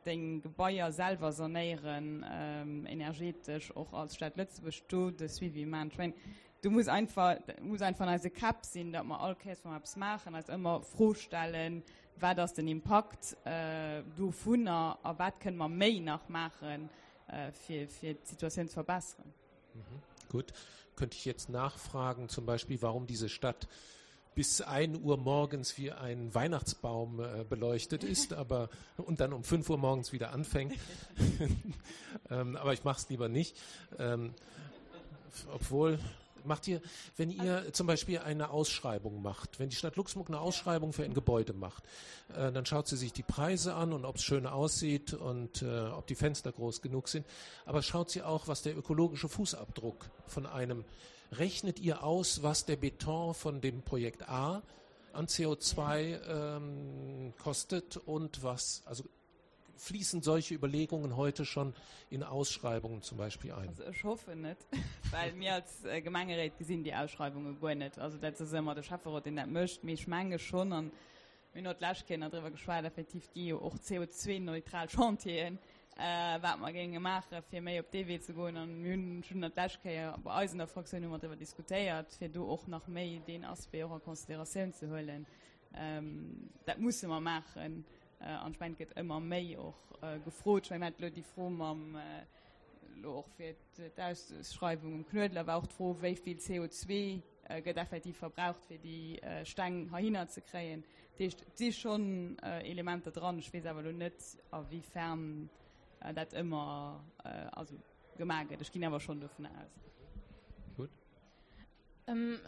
deng Gebaier selwer sanéieren, energetesch, och als Stad Lëtzebuerg do de Suivi maachen. Ech mengen, do muss einfach, muss einfach an eise Käpp sinn, datt mer all Kéiers, wa mer eppes maachen, eis ëmmer d'Fro stellen, Wat ass den Impakt dovunner a wat kënne mer méi nach maachen, fir, fir d'Situatioun ze verbessern? Mhm. Gut. Könnte ich jetzt nachfragen, zum Beispiel, warum diese Stadt bis 1 Uhr morgens wie ein Weihnachtsbaum äh, beleuchtet ist, aber und dann um 5 Uhr morgens wieder anfängt. ähm, aber ich mache es lieber nicht. Ähm, obwohl macht ihr, wenn ihr zum Beispiel eine Ausschreibung macht, wenn die Stadt Luxemburg eine Ausschreibung für ein Gebäude macht, äh, dann schaut sie sich die Preise an und ob es schön aussieht und äh, ob die Fenster groß genug sind. Aber schaut sie auch, was der ökologische Fußabdruck von einem rechnet ihr aus, was der Beton von dem Projekt A an CO2 ähm, kostet und was also Fließen solche Überlegungen heute schon in Ausschreibungen zum Beispiel ein? Also ech hoffen net, well mir als Gemengeréit gesinn déi Ausschreiwunge guer net. Also dat ass ëmmer de Schäfferot, deen dat mécht. Mee ech menge schonn, an mir hunn och d'lescht Kéier nach driwwer geschwat, effektiv gi jo och CO2-neutral Chantieren, wat mer géinge maachen, fir méi op dee Wee ze goen. An mir hunn schonn dat d'lescht Kéier bei eis an der Fraktioun hu mer driwwer diskutéiert, fir do och nach méi deen Aspect och a Consideratioun ze huelen. Dat musse mer maachen. An ech mengen, et gëtt ëmmer méi och gefrot. Ech mengen, mir haten elo déi Fro mam, elo och fir d'Ausschreiwung um Knuedler war och d'Fro, wéi vill CO2 gëtt effektiv verbraucht, fir déi Steng heihinner ze kréien. Dat heescht, et si schonn Elementer dran. Ech weess awer elo net, a wéi fern dat ëmmer, also gemaach gëtt. Ech ginn awer schonn dovun aus. Gutt.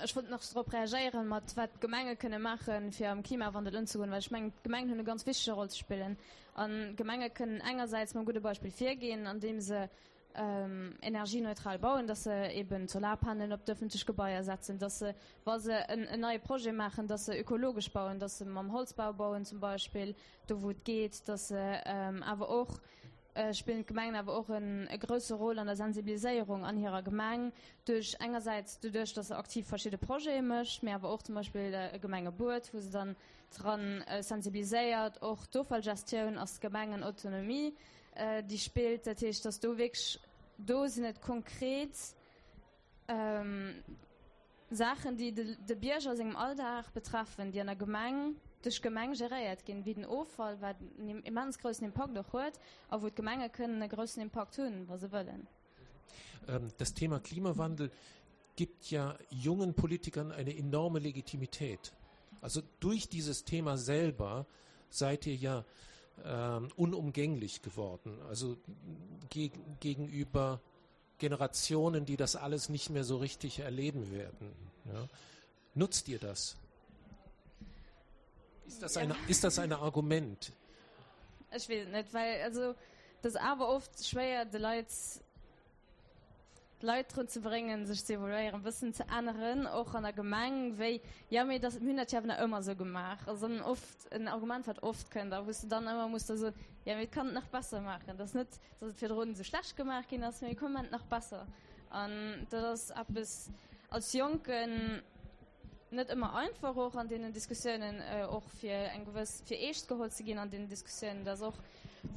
Ech wollt nach drop reagéieren, mat wat d'Gemenge kënne maachen, fir am Klimawandel ëmzegoen, well ech mengen, d'Gemengen hunn e ganz wichtege Roll ze spillen. An d'Gemenge kënnen engersäits mam gudde Beispill virginn, andeem se energieneutral bauen, dass se eben d'Solarpanelen op d'ëffentlech Gebaier setzen, dass se, wa se en neie Projet maachen, dass se ökologesch bauen, dass se mam Holzbau bauen zum Beispill, do wou et geet, dass se awer och spillen d'Gemengen awer och e grousse Rôle an der Sensibiliséierung an hirer Gemeng, duerch engersäits doduerch, datt se aktiv verschidde Projete mécht, mee awer och zum Beispill e Gemengebuet, wou se dann dran sensibiliséiert. Och d'Offallgestioun ass d'Gemengenautonomie, déi spillt. Dat heescht, datt do wierklech, do sinn et konkret Saachen, déi de Bierger a sengem Alldag betreffen, déi an der Gemeng duerch d'Gemeng geréiert ginn, wéi den Offall, wat en immens groussen Impakt och huet a wou d'Gemenge kënnen e groussen Impakt hunn, wa se wëllen. Das Thema Klimawandel gibt ja jungen Politikern eine enorme Legitimität. Also durch dieses Thema selber seid ihr ja ähm, unumgänglich geworden, also geg gegenüber Generationen, die das alles nicht mehr so richtig erleben werden. Ja. Nutzt ihr das? Ist das, eine, ist das ein Argument? Ech weess et net, well also et ass awer oft schwéier de Leit d'Leit drun ze bréngen, sech ze evoluéieren, e bëssen ze änneren, och an der Gemeng, wéi jo mee dat mir hunn dat jo awer nach ëmmer esou gemaach. Ass dann oft en Argument, wat oft kënnt a wou s de dann ëmmer muss da soen, jo mee et kann et nach besser maachen. Dat ass net dass et virdrun esou schlecht gemaach ginn ass, mee komm, mir maachen et nach besser. An dat ass eppes als Jonken net ëmmer einfach, och an deenen Diskussiounen, och fir eng gewëss, fir eescht geholl ze ginn an deenen Diskussiounen. Dat ass och,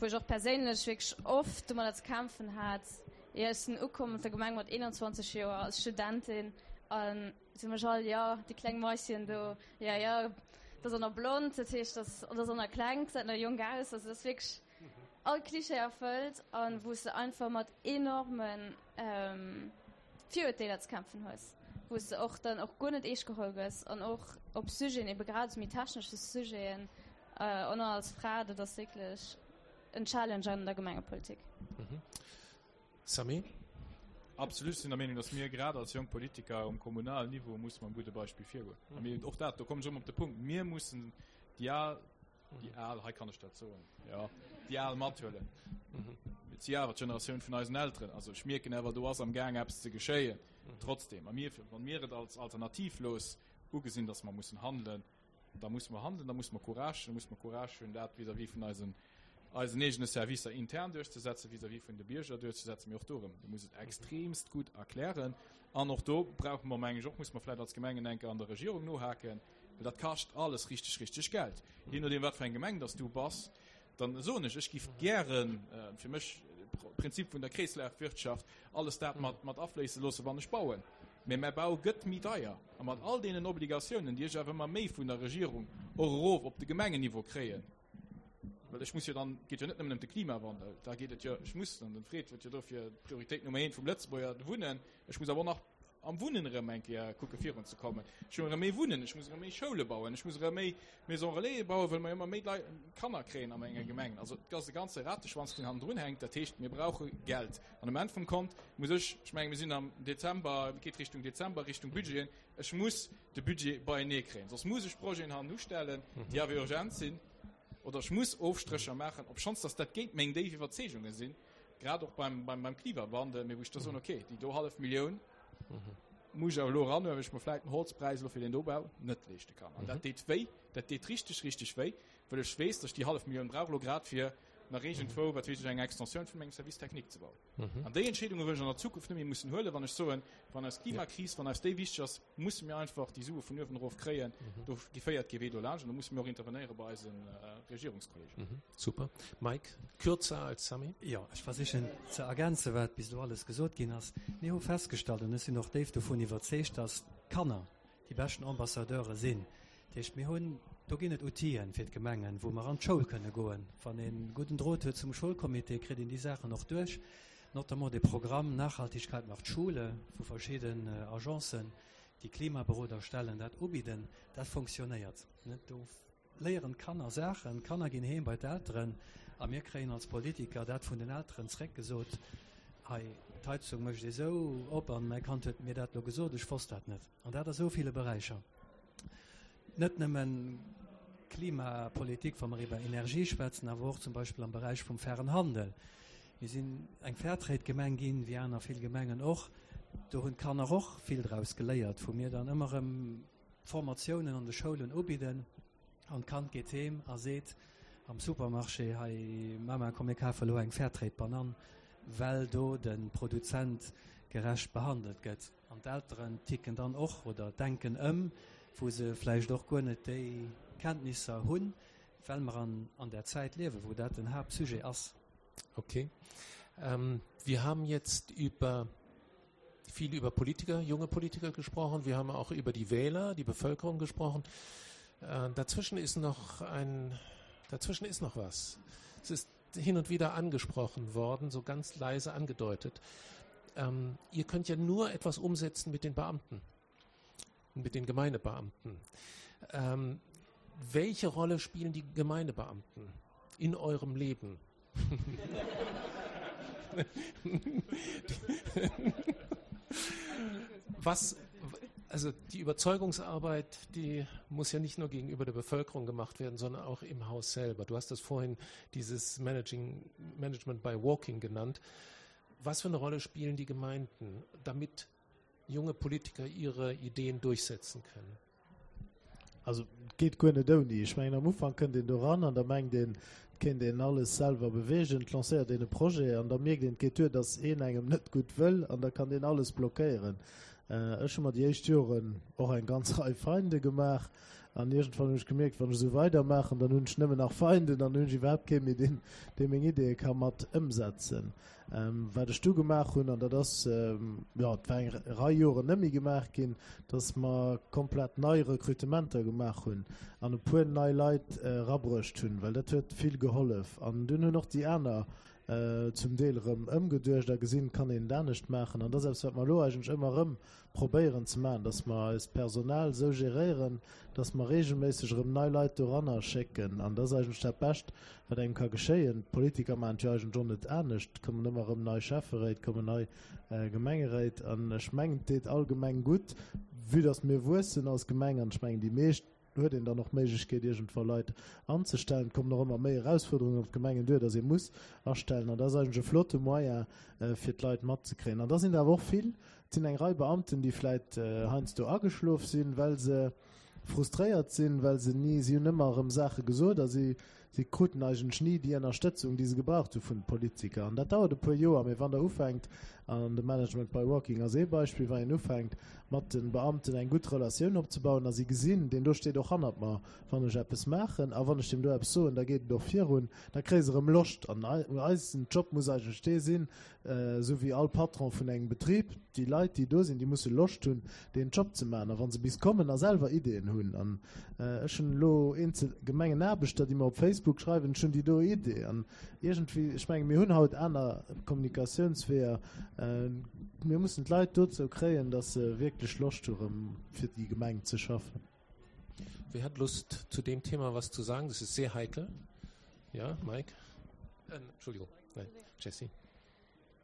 wou ech och perséinlech wierklech oft domadder ze kämpfen hat. Jo, ech sinn ukomm op der Gemeng mat 21 Joer als Studentin an se hu mech all, jo, déi kleng Maischen do, jo, jo, dat ass och nach blond, dat heescht, dat ass och nach kleng, gesäit nach jonk aus. Also dat ass wierklech all Klischee erfëllt an wou s de einfach mat enorme Virurteeler ze kämpfen hues, wou s de och dann och guer net eescht geholl gëss an och op Sujeten, ebe grad esou méi technesche Sujeten, och nach als Fra, dat ass wierklech en Challenge an der Gemengepolitik. Samy? Absolut, ech sinn der Meenung, datt mir grad als jonk Politiker um kommunalen Niveau musse mam gudde Beispill virgoen. A mir, och dat, do kommen ech erëm op de Punkt, mir mussen déi al, Déi al, hei kann ech dat soen, jo, déi al mathuelen. Et si awer d'Generatioun vun eisen Elteren. Also ech mierken awer, do ass am Gaang eppes ze geschéien. Trotzdem, a mir, wa mir et als alternativlos ugesinn, datt mer mussen handelen, da musse mer handelen, da musse mer Courage hunn, da musse mer Courage hunn, dat vis-à-vis vun eisen. eisen eegene Servicer intern duerchzesetzen, vis-à-vis vun de Bierger duerchzesetzen, mee och do erëm, du muss et extremst gutt erklären. An och do brauche mer, meng ech och, muss mer vläicht als Gemengen eng Kéier an der Regierung nohaken, well dat kascht alles richteg, richteg Geld. Jee nodeem, wat fir eng Gemeng dass du bass, dann soen ech, ech giff gären, fir mech Prinzip vun der Kreeslafwirtschaft, alles dat mat, mat afléisse loossen, wann ech bauen. Mä mäi Bau gëtt méi deier. A mat all deenen Obligatiounen, déi ech awer ëmmer méi vun der Regierung och erof op de Gemengenniveau kréien, well ech muss jo dann, et geet jo net nëmmen ëm de Klimawandel, da geet et jo, ech muss, an den Fred huet jo dofir d'Prioritéit Nummer eent vum Lëtzebuerger, de Wunnen, ech muss awer och nach am Wunnen erëm eng Kéier kucke virun ze kommen. Ech muss erëm méi wunnen, ech muss erëm méi Schoule bauen, ech muss erëm méi Maisons Relais bauen, well mer ëmmer méi Leit, Kanner kréien a menger Gemeng. Also et ass e ganze Rateschwanz, deen hannendrun hänkt. Dat heescht, mir brauche Geld. An um Enn vum Kont muss ech, ech menge mir sinn am Dezember, et geet Richtung Dezember, Richtung Budgeten, ech muss de Budget beienee kréien, soss muss ech Projeten hannenustellen, déi awer urgent sinn, oder ech muss Ofstrécher maachen, obschonns datt dat géint meng déif Iwwerzeegunge sinn. grad och beim, beim, beim Klimawandel, mee wou ech da soen, okay, déi do hallef Millioun muss ech awer elo eranhuelen, well ech mer vläicht den Holzpräis elo fir deen do Bau net leeschte kann. An dat deet wéi, dat deet richteg, richteg wéi, well ech weess, datt ech déi hallef Millioun brauch elo grad fir nach iergendwou, wat weess ech, eng Extensioun vun mengem Service technique ze bauen. An déi Entscheedunge wëll ech an der Zukunft net méi mussen huelen, wann ech soen, wann eis Klimakris, wann eis déi wichteg ass, musse mir einfach déi Sue vun uewen erof kréien. Do féiert kee Wee dolaanscht an do musse mir och intervenéiere bei eise Regierungskollegen. Super. Mike, kürzer als Samy. Jo, ech versichen ze ergänzen, wat bis elo alles gesot ginn ass. Mir hu festgestallt, an ech sinn och déif dovun iwwerzeegt, dass d'Kanner déi beschten Ambassadeure sinn. Dat heescht, mir hunn, do ginn et Outile fir d'Gemengen, wou mer an d'Schoul kënne goen. Wann ee gudden Drot huet zum Schoulcomité, kritt een déi Saachen och duerch, notamment de Programm Nachhaltigkeit macht Schule, wou verschidden Agencen, déi Klimaberoder stellen, dat ubidden. Dat fonctionnéiert. Do léieren d'Kanner Saachen, d'Kanner ginn heem bei d'Elteren a mir kréien als Politiker dat vun den Elteren zréckgesot, hei, d'Heizung mécht ee sou op an mäi Kand huet mir dat elo gesot, ech wosst dat net. An dat a sou ville Beräicher. Net nëmmen Klimapolitik, wa mer iwwer Energie schwätzen, awer och zum Beispill am Beräich vum fairen Handel. Mir sinn eng Fairtrade-Gemeng ginn, wéi aner vill Gemengen och. Do hunn d'Kanner och vill draus geléiert, wou mir dann ëmmer erëm Formatiounen an de Schoulen ubidden an d'Kand geet heem a seet am Supermarché, Hei Mama, komm mir kafe elo eng Fairtrade-Banann, well do de Produzent gerecht behandelt gëtt. An d'Elteren ticken dann och oder denken ëm, wou se vläicht och guer net déi Kenntnisser hunn, well mer an an där Zäit liewen, wou dat den Haaptsujet ass. Okay. Ähm, wir haben jetzt über viel über Politiker, junge Politiker gesprochen. Wir haben auch über die Wähler, die Bevölkerung gesprochen. Äh, dazwischen ist noch ein, dazwischen ist noch was. Es ist hin und wieder angesprochen worden, so ganz leise angedeutet. Ähm, ihr könnt ja nur etwas umsetzen mit den Beamten, mit den Gemeindebeamten. Ähm, welche Rolle spielen die Gemeindebeamten in eurem Leben? Was, also die Überzeugungsarbeit, die muss ja nicht nur gegenüber der Bevölkerung gemacht werden, sondern auch im Haus selber. Du hast das vorhin dieses Managing, Management by Walking genannt. Was für eine Rolle spielen die Gemeinden, damit junge Politiker ihre Ideen durchsetzen können? Also et geet guer net ouni. Ech mengen am Ufank kënnt een do ran an da mengt een, et kéint een alles selwer beweegen, et lancéiert een e Projet an da mierkt een, et geet duer, datt een engem net gutt wëll an da kann deen alles blockéieren. Ech hu mer déi éischt Joren och eng ganz Rei Feinde gemaach an iergendwann hunn ech gemierkt, wann ech esou weidermaachen, dann hunn ech nëmmen nach Feinden an dann hunn ech iwwerhaapt kee méi, deen, dee meng Ideeë ka mat ëmsetzen. Wat ech du gemaach hunn, an dat ass, jo, et war eng Rei Joren net méi gemaach ginn, dass mer komplett nei Rekrutementer gemaach hunn an e puer nei Leit erabruecht hunn, well dat huet vill gehollef. An dunn hunn och déi aner zum Deel erëm ëmgeduecht a gesinn, et kann een et anescht maachen. An dat ass eppes, wat mer elo eigentlech ëmmer erëm probéieren ze maachen, dass mer eist Personal esou geréieren, dass mer regelméisseg erëm nei Leit doranner schécken. An dat ass eigentlech dat Bescht, wat engem ka geschéien. D'Politiker maachen et jo eigentlech och net anescht. Et kommen ëmmer erëm nei Schäfferéit, kommen nei Gemengeréit. An ech mengen, et deet all Gemeng gutt, vue dass mir wuessen als Gemeng. An ech mengen, déi meescht huet een dann och d'Méiglechkeet, iergendwa Leit anzestellen. Et kommen och ëmmer méi Erausfuerderungen op d'Gemengen duer, dass ee muss astellen. An dat ass eigentlech e flotte Moyen, fir d'Leit matzekréien. An da sinn der awer och vill, Et sinn eng Rei Beamten, déi vläit heiansdo ageschlof sinn, well se frustréiert sinn, well se ni, si hunn ëmmer erëm Saache gesot a si Si kruten eigentlech ni déi Ënnerstëtzung, déi se gebraucht hu vun de Politiker. An dat dauert e puer Joer, mee wann Der ufänkt, an de Management by Walking ass ee Beispill, wann een ufänkt, mat de Beamten eng gutt Relatioun opzebauen a si gesinn, deen do steet och hannert mer, wann ech eppes maachen a wann ech deem do eppes soen, da geet et och virun, da kréie se erëm Loscht. An eisen Job muss eigentlech dee sinn, Esou wéi all Patron vun engem Betrib, déi Leit, déi do sinn, déi musse Loscht hunn, deen Job ze maachen. A wa se bis kommen a selwer Ideeën hunn, an ech hunn elo eenzel Gemengenaarbechter, déi mer op Facebook schreiwen, ech hunn déi do Idee. An iergendwéi, ech menge mir hunn haut aner Kommunikatiounsweeër, mir mussen d'Leit dozou kréien, datt se wierklech Loscht hu rëm fir déi Gemeng ze schaffen. Wer hat Lust zu dem Thema was zu sagen? Das ist sehr heikel. Ja, Mike? Äh, Entschuldigung, nein, Jessie.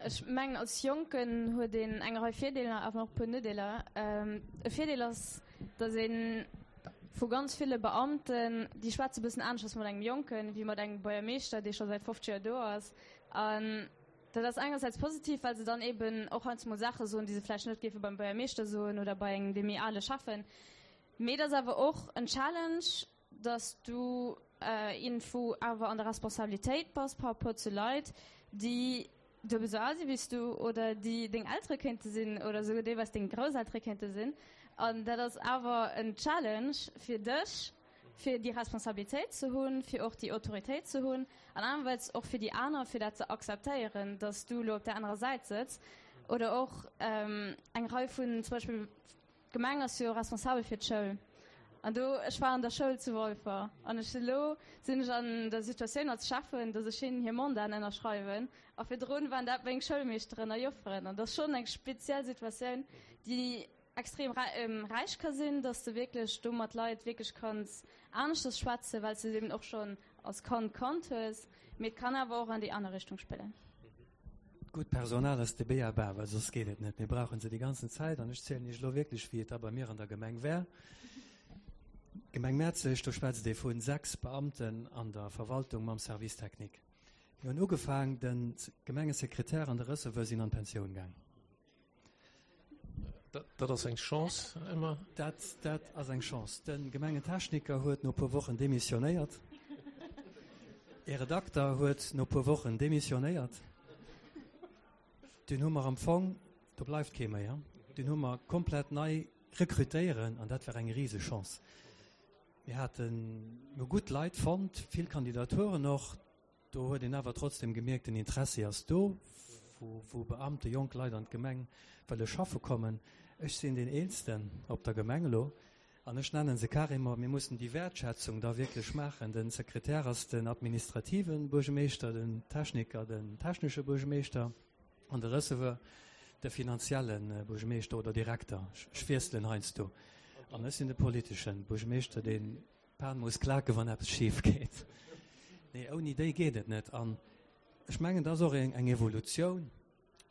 Ech mengen als Jonken huet een eng Rei Virdeeler, awer och e puer Nodeeler. E Virdeel ass, datt ee vu ganz ville Beamten, déi schwätze e bëssen aneschters mat engem Jonken, wéi mat engem Buergermeeschter, dee scho säit 50 Joer do ass. An dat ass engersäits positiv, well se dann eeben och heiansdo mol Saache soen, déi se vläicht net géife beim Buergermeeschter soen oder bei engem, dee méi ale Schäffen. Mee et ass awer och en Challenge, dass du iergendwou awer an der Responsabilitéit bass par rapport zu Leit, déi duebel esou al si wéi s du oder déi deng Eltere kéinte sinn oder esouguer deelweis deng Grousseltere kéinte sinn. An dat ass awer en Challenge fir dech, fir déi Responsabilitéit ze hunn, fir och déi Autoritéit ze hunn an anerersäits och fir déi aner, fir dat ze akzeptéieren, dass du elo op där anerer Säit sëtz. Oder och eng Rei vun zum Beispill D'Gemeng ass jo responsabel fir d'Schoul. An do, ech war an der Schoul zu Walfer an ech elo sinn ech an der Situatioun als Schäffen, datt ech hinnen hir Mandaten ënnerschreiwen. A virdrun waren dat meng Schoulmeeschteren a Jofferen. An dat ass schonn eng speziell Situatioun, déi extrem räich ka sinn, datt s de wierklech do mat Leit wierklech kanns aneschters schwätzen, well s de se eben och schonn als Kand kannt hues. Mee et kann awer och an déi aner Richtung spillen. Gutt Personal ass de B.a.-ba, well soss geet et net. Mir brauche se déi ganzen Zäit. An ech zielen Iech elo wierklech, wéi et da bei mir an der Gemeng war. D'Gemeng Mäerzeg, do schwätzt ee vu 6 Beamten an der Verwaltung mam Service technique. Mir hunn ugefaang, de Gemengesekretär an de Receveur sinn an d'Pensioun gaang. Dat ass eng Chance ëmmer. Dat, dat ass eng Chance. De Gemengentechniker huet no e puer Wochen demissionéiert. E Redakter huet no e puer Wochen demissionéiert. Dunn hu mer am Fong, do bleift kee méi, dunn hu mer komplett nei rekrutéieren an dat war eng Risechance. Mir haten, mir hu gutt Leit fonnt, vill Kandidaturen och. Do huet een awer trotzdem gemierkt, den Interessi ass do, wou Beamte, jonk Leit an d'Gemeng wëlle schaffe kommen. Ech sinn deen Eelsten op der Gemeng elo an ech nennen se carrément, mir mussen déi Wäertschätzung da wierklech maachen. De Sekretär ass den administrative Buergemeeschter, den Techniker den technesche Buergemeeschter an de Receveur de finanzielle Buergemeeschter oder Direkter. Ech wiesselen heiansdo. An ech sinn de politesche Buergemeeschter, deen D'Pan muss klaken, wann eppes schif geet. Nee, ouni déi geet et net. An ech mengen, dat ass och eng Evolutioun,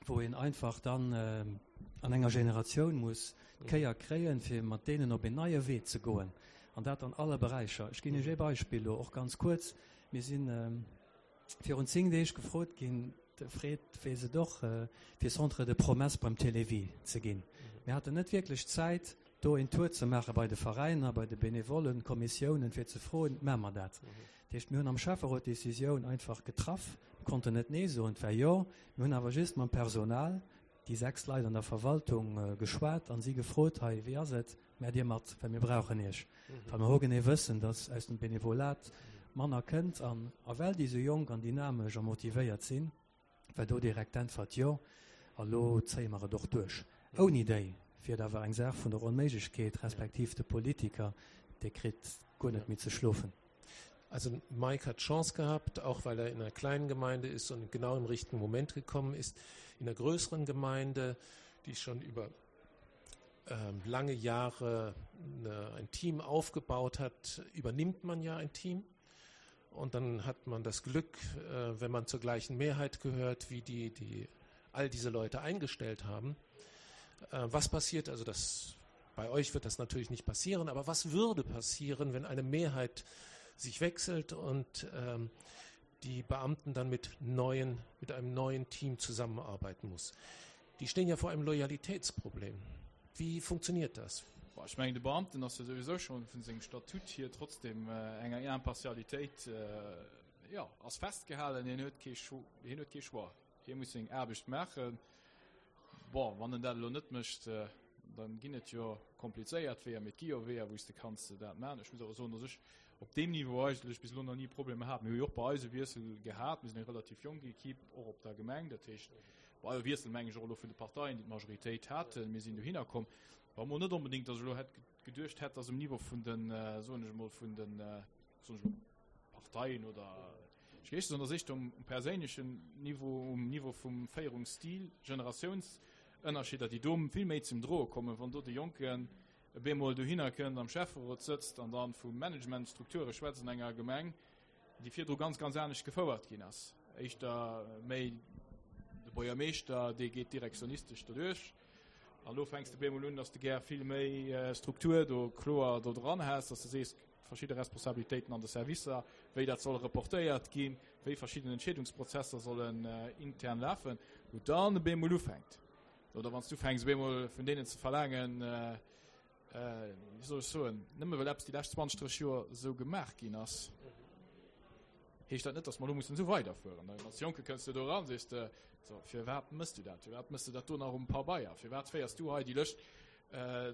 wou een einfach dann an enger Generatioun muss d'Kéier kréien, fir mat deenen op een neie Wee ze goen. An dat an alle Beräicher. Ech ginn Iech ee Beispill elo och ganz kuerz. Mir sinn virun 10 Deeg gefrot ginn, de Fred weess et och, fir Centre de promesses beim Télévie ze ginn. Mir haten net wierklech Zäit, do een Tour ze maache bei de Veräiner, bei de Benevollen, Kommissiounen, fir ze froen, Maache mer dat? Dat heescht, mir hunn am Schäfferot d'Decisioun einfach getraff, mir konnten net Nee soen, et war Jo. Mir hunn awer just mam Personal, déi 6 Leit an der Verwaltung, geschwat a si gefrot, Hei, wéi ass et? Maacht Dir mat, well mir brauchen Iech. Well mer hogenee wëssen, datt aus dem Benevolat manner kënnt. An a well déi esou jonk an dynamesch a motivéiert sinn, war do direkt d'Äntwert, Jo, a lo zéie mer et och duerch. Ouni déi wier et awer eng Saach vun der Onméiglechkeet, respektiv de Politiker, dee kritt guer net méi ze schlofen. Also Mike hat Chance gehabt, auch weil er in einer kleinen Gemeinde ist und genau im richtigen Moment gekommen ist. In einer größeren Gemeinde, die schon über ähm, lange Jahre eine, ein Team aufgebaut hat, übernimmt man ja ein Team. Und dann hat man das Glück, äh, wenn man zur gleichen Mehrheit gehört, wie die, die all diese Leute eingestellt haben. Äh, was passiert also das bei euch wird das natürlich nicht passieren, aber was würde passieren, wenn eine Mehrheit sich wechselt und ähm, die Beamten dann mit neuen mit einem neuen Team zusammenarbeiten muss? Die stehen ja vor einem Loyalitätsproblem. Wie funktioniert das? Bon, ech mengen, de Beamten ass jo souwisou schonn vun sengem Statut hier trotzdem enger Impartialitéit, jo, ass festgehalen. Hien huet kee Cho-, hien huet kee Choix. Hie muss seng Aarbecht maachen. Bon, wann en dat elo net mécht, dann ginn et jo komplizéiert Weeër, mee et gi jo Weeër, wou s de kanns dat maachen. Ech muss awer soen, dass ech op deem Niveau eigentlech bis elo nach ni Problemer hat. Mir hu jo och bei eis e Wiessel gehat. Mir sinn eng relativ jonk Equipe, och op der Gemeng. Dat heescht, bei e Wiessel meng ech och elo vun de Parteien, déi d'Majoritéit haten. Mir sinn dohinner komm. War emol net onbedéngt, dass ech elo hätt geduecht hätt, dass um Niveau vun den, soen ech emol, vun den, soen ech elo, Parteien oder ech géif soen, dass éischter um perséinlechen Niveau, um Niveau vum Féierungsstil, Generatiounsënnerscheeder, déi do vill méi zum Droe kommen, wann do de Jonken e bemol dohinner kënnt, am Schäfferot sëtzt an dann vu Managementstrukture schwätzt an enger Gemeng, déi virdru ganz, ganz anescht gefouert ginn ass. Éischter méi de Buergermeeschter, dee geet direktionistesch doduerch. An elo fänks de bemol un, dass de gär vill méi Struktur do kloer do dran häss, dass de sees, verschidde Responsabilitéiten an de Servicer, wéi dat soll reportéiert ginn, wéi verschidden Entscheedungsprozesser sollen intern lafen, wou dann e bemol ufänkt. Oder wann s du ufänks, op eemol vun deenen ze verlaangen, wéi soll ech soen, nëmme well eppes déi lescht 20, 30 Joer esou gemaach ginn ass, heescht dat net, datt mer elo mussen esou weiderfueren. Als Jonke kënns du do eran, sees de, so, firwat mëss du dat? Firwat mëss du dat do nach um Pabeier? Firwat féiers du hei déi Lëscht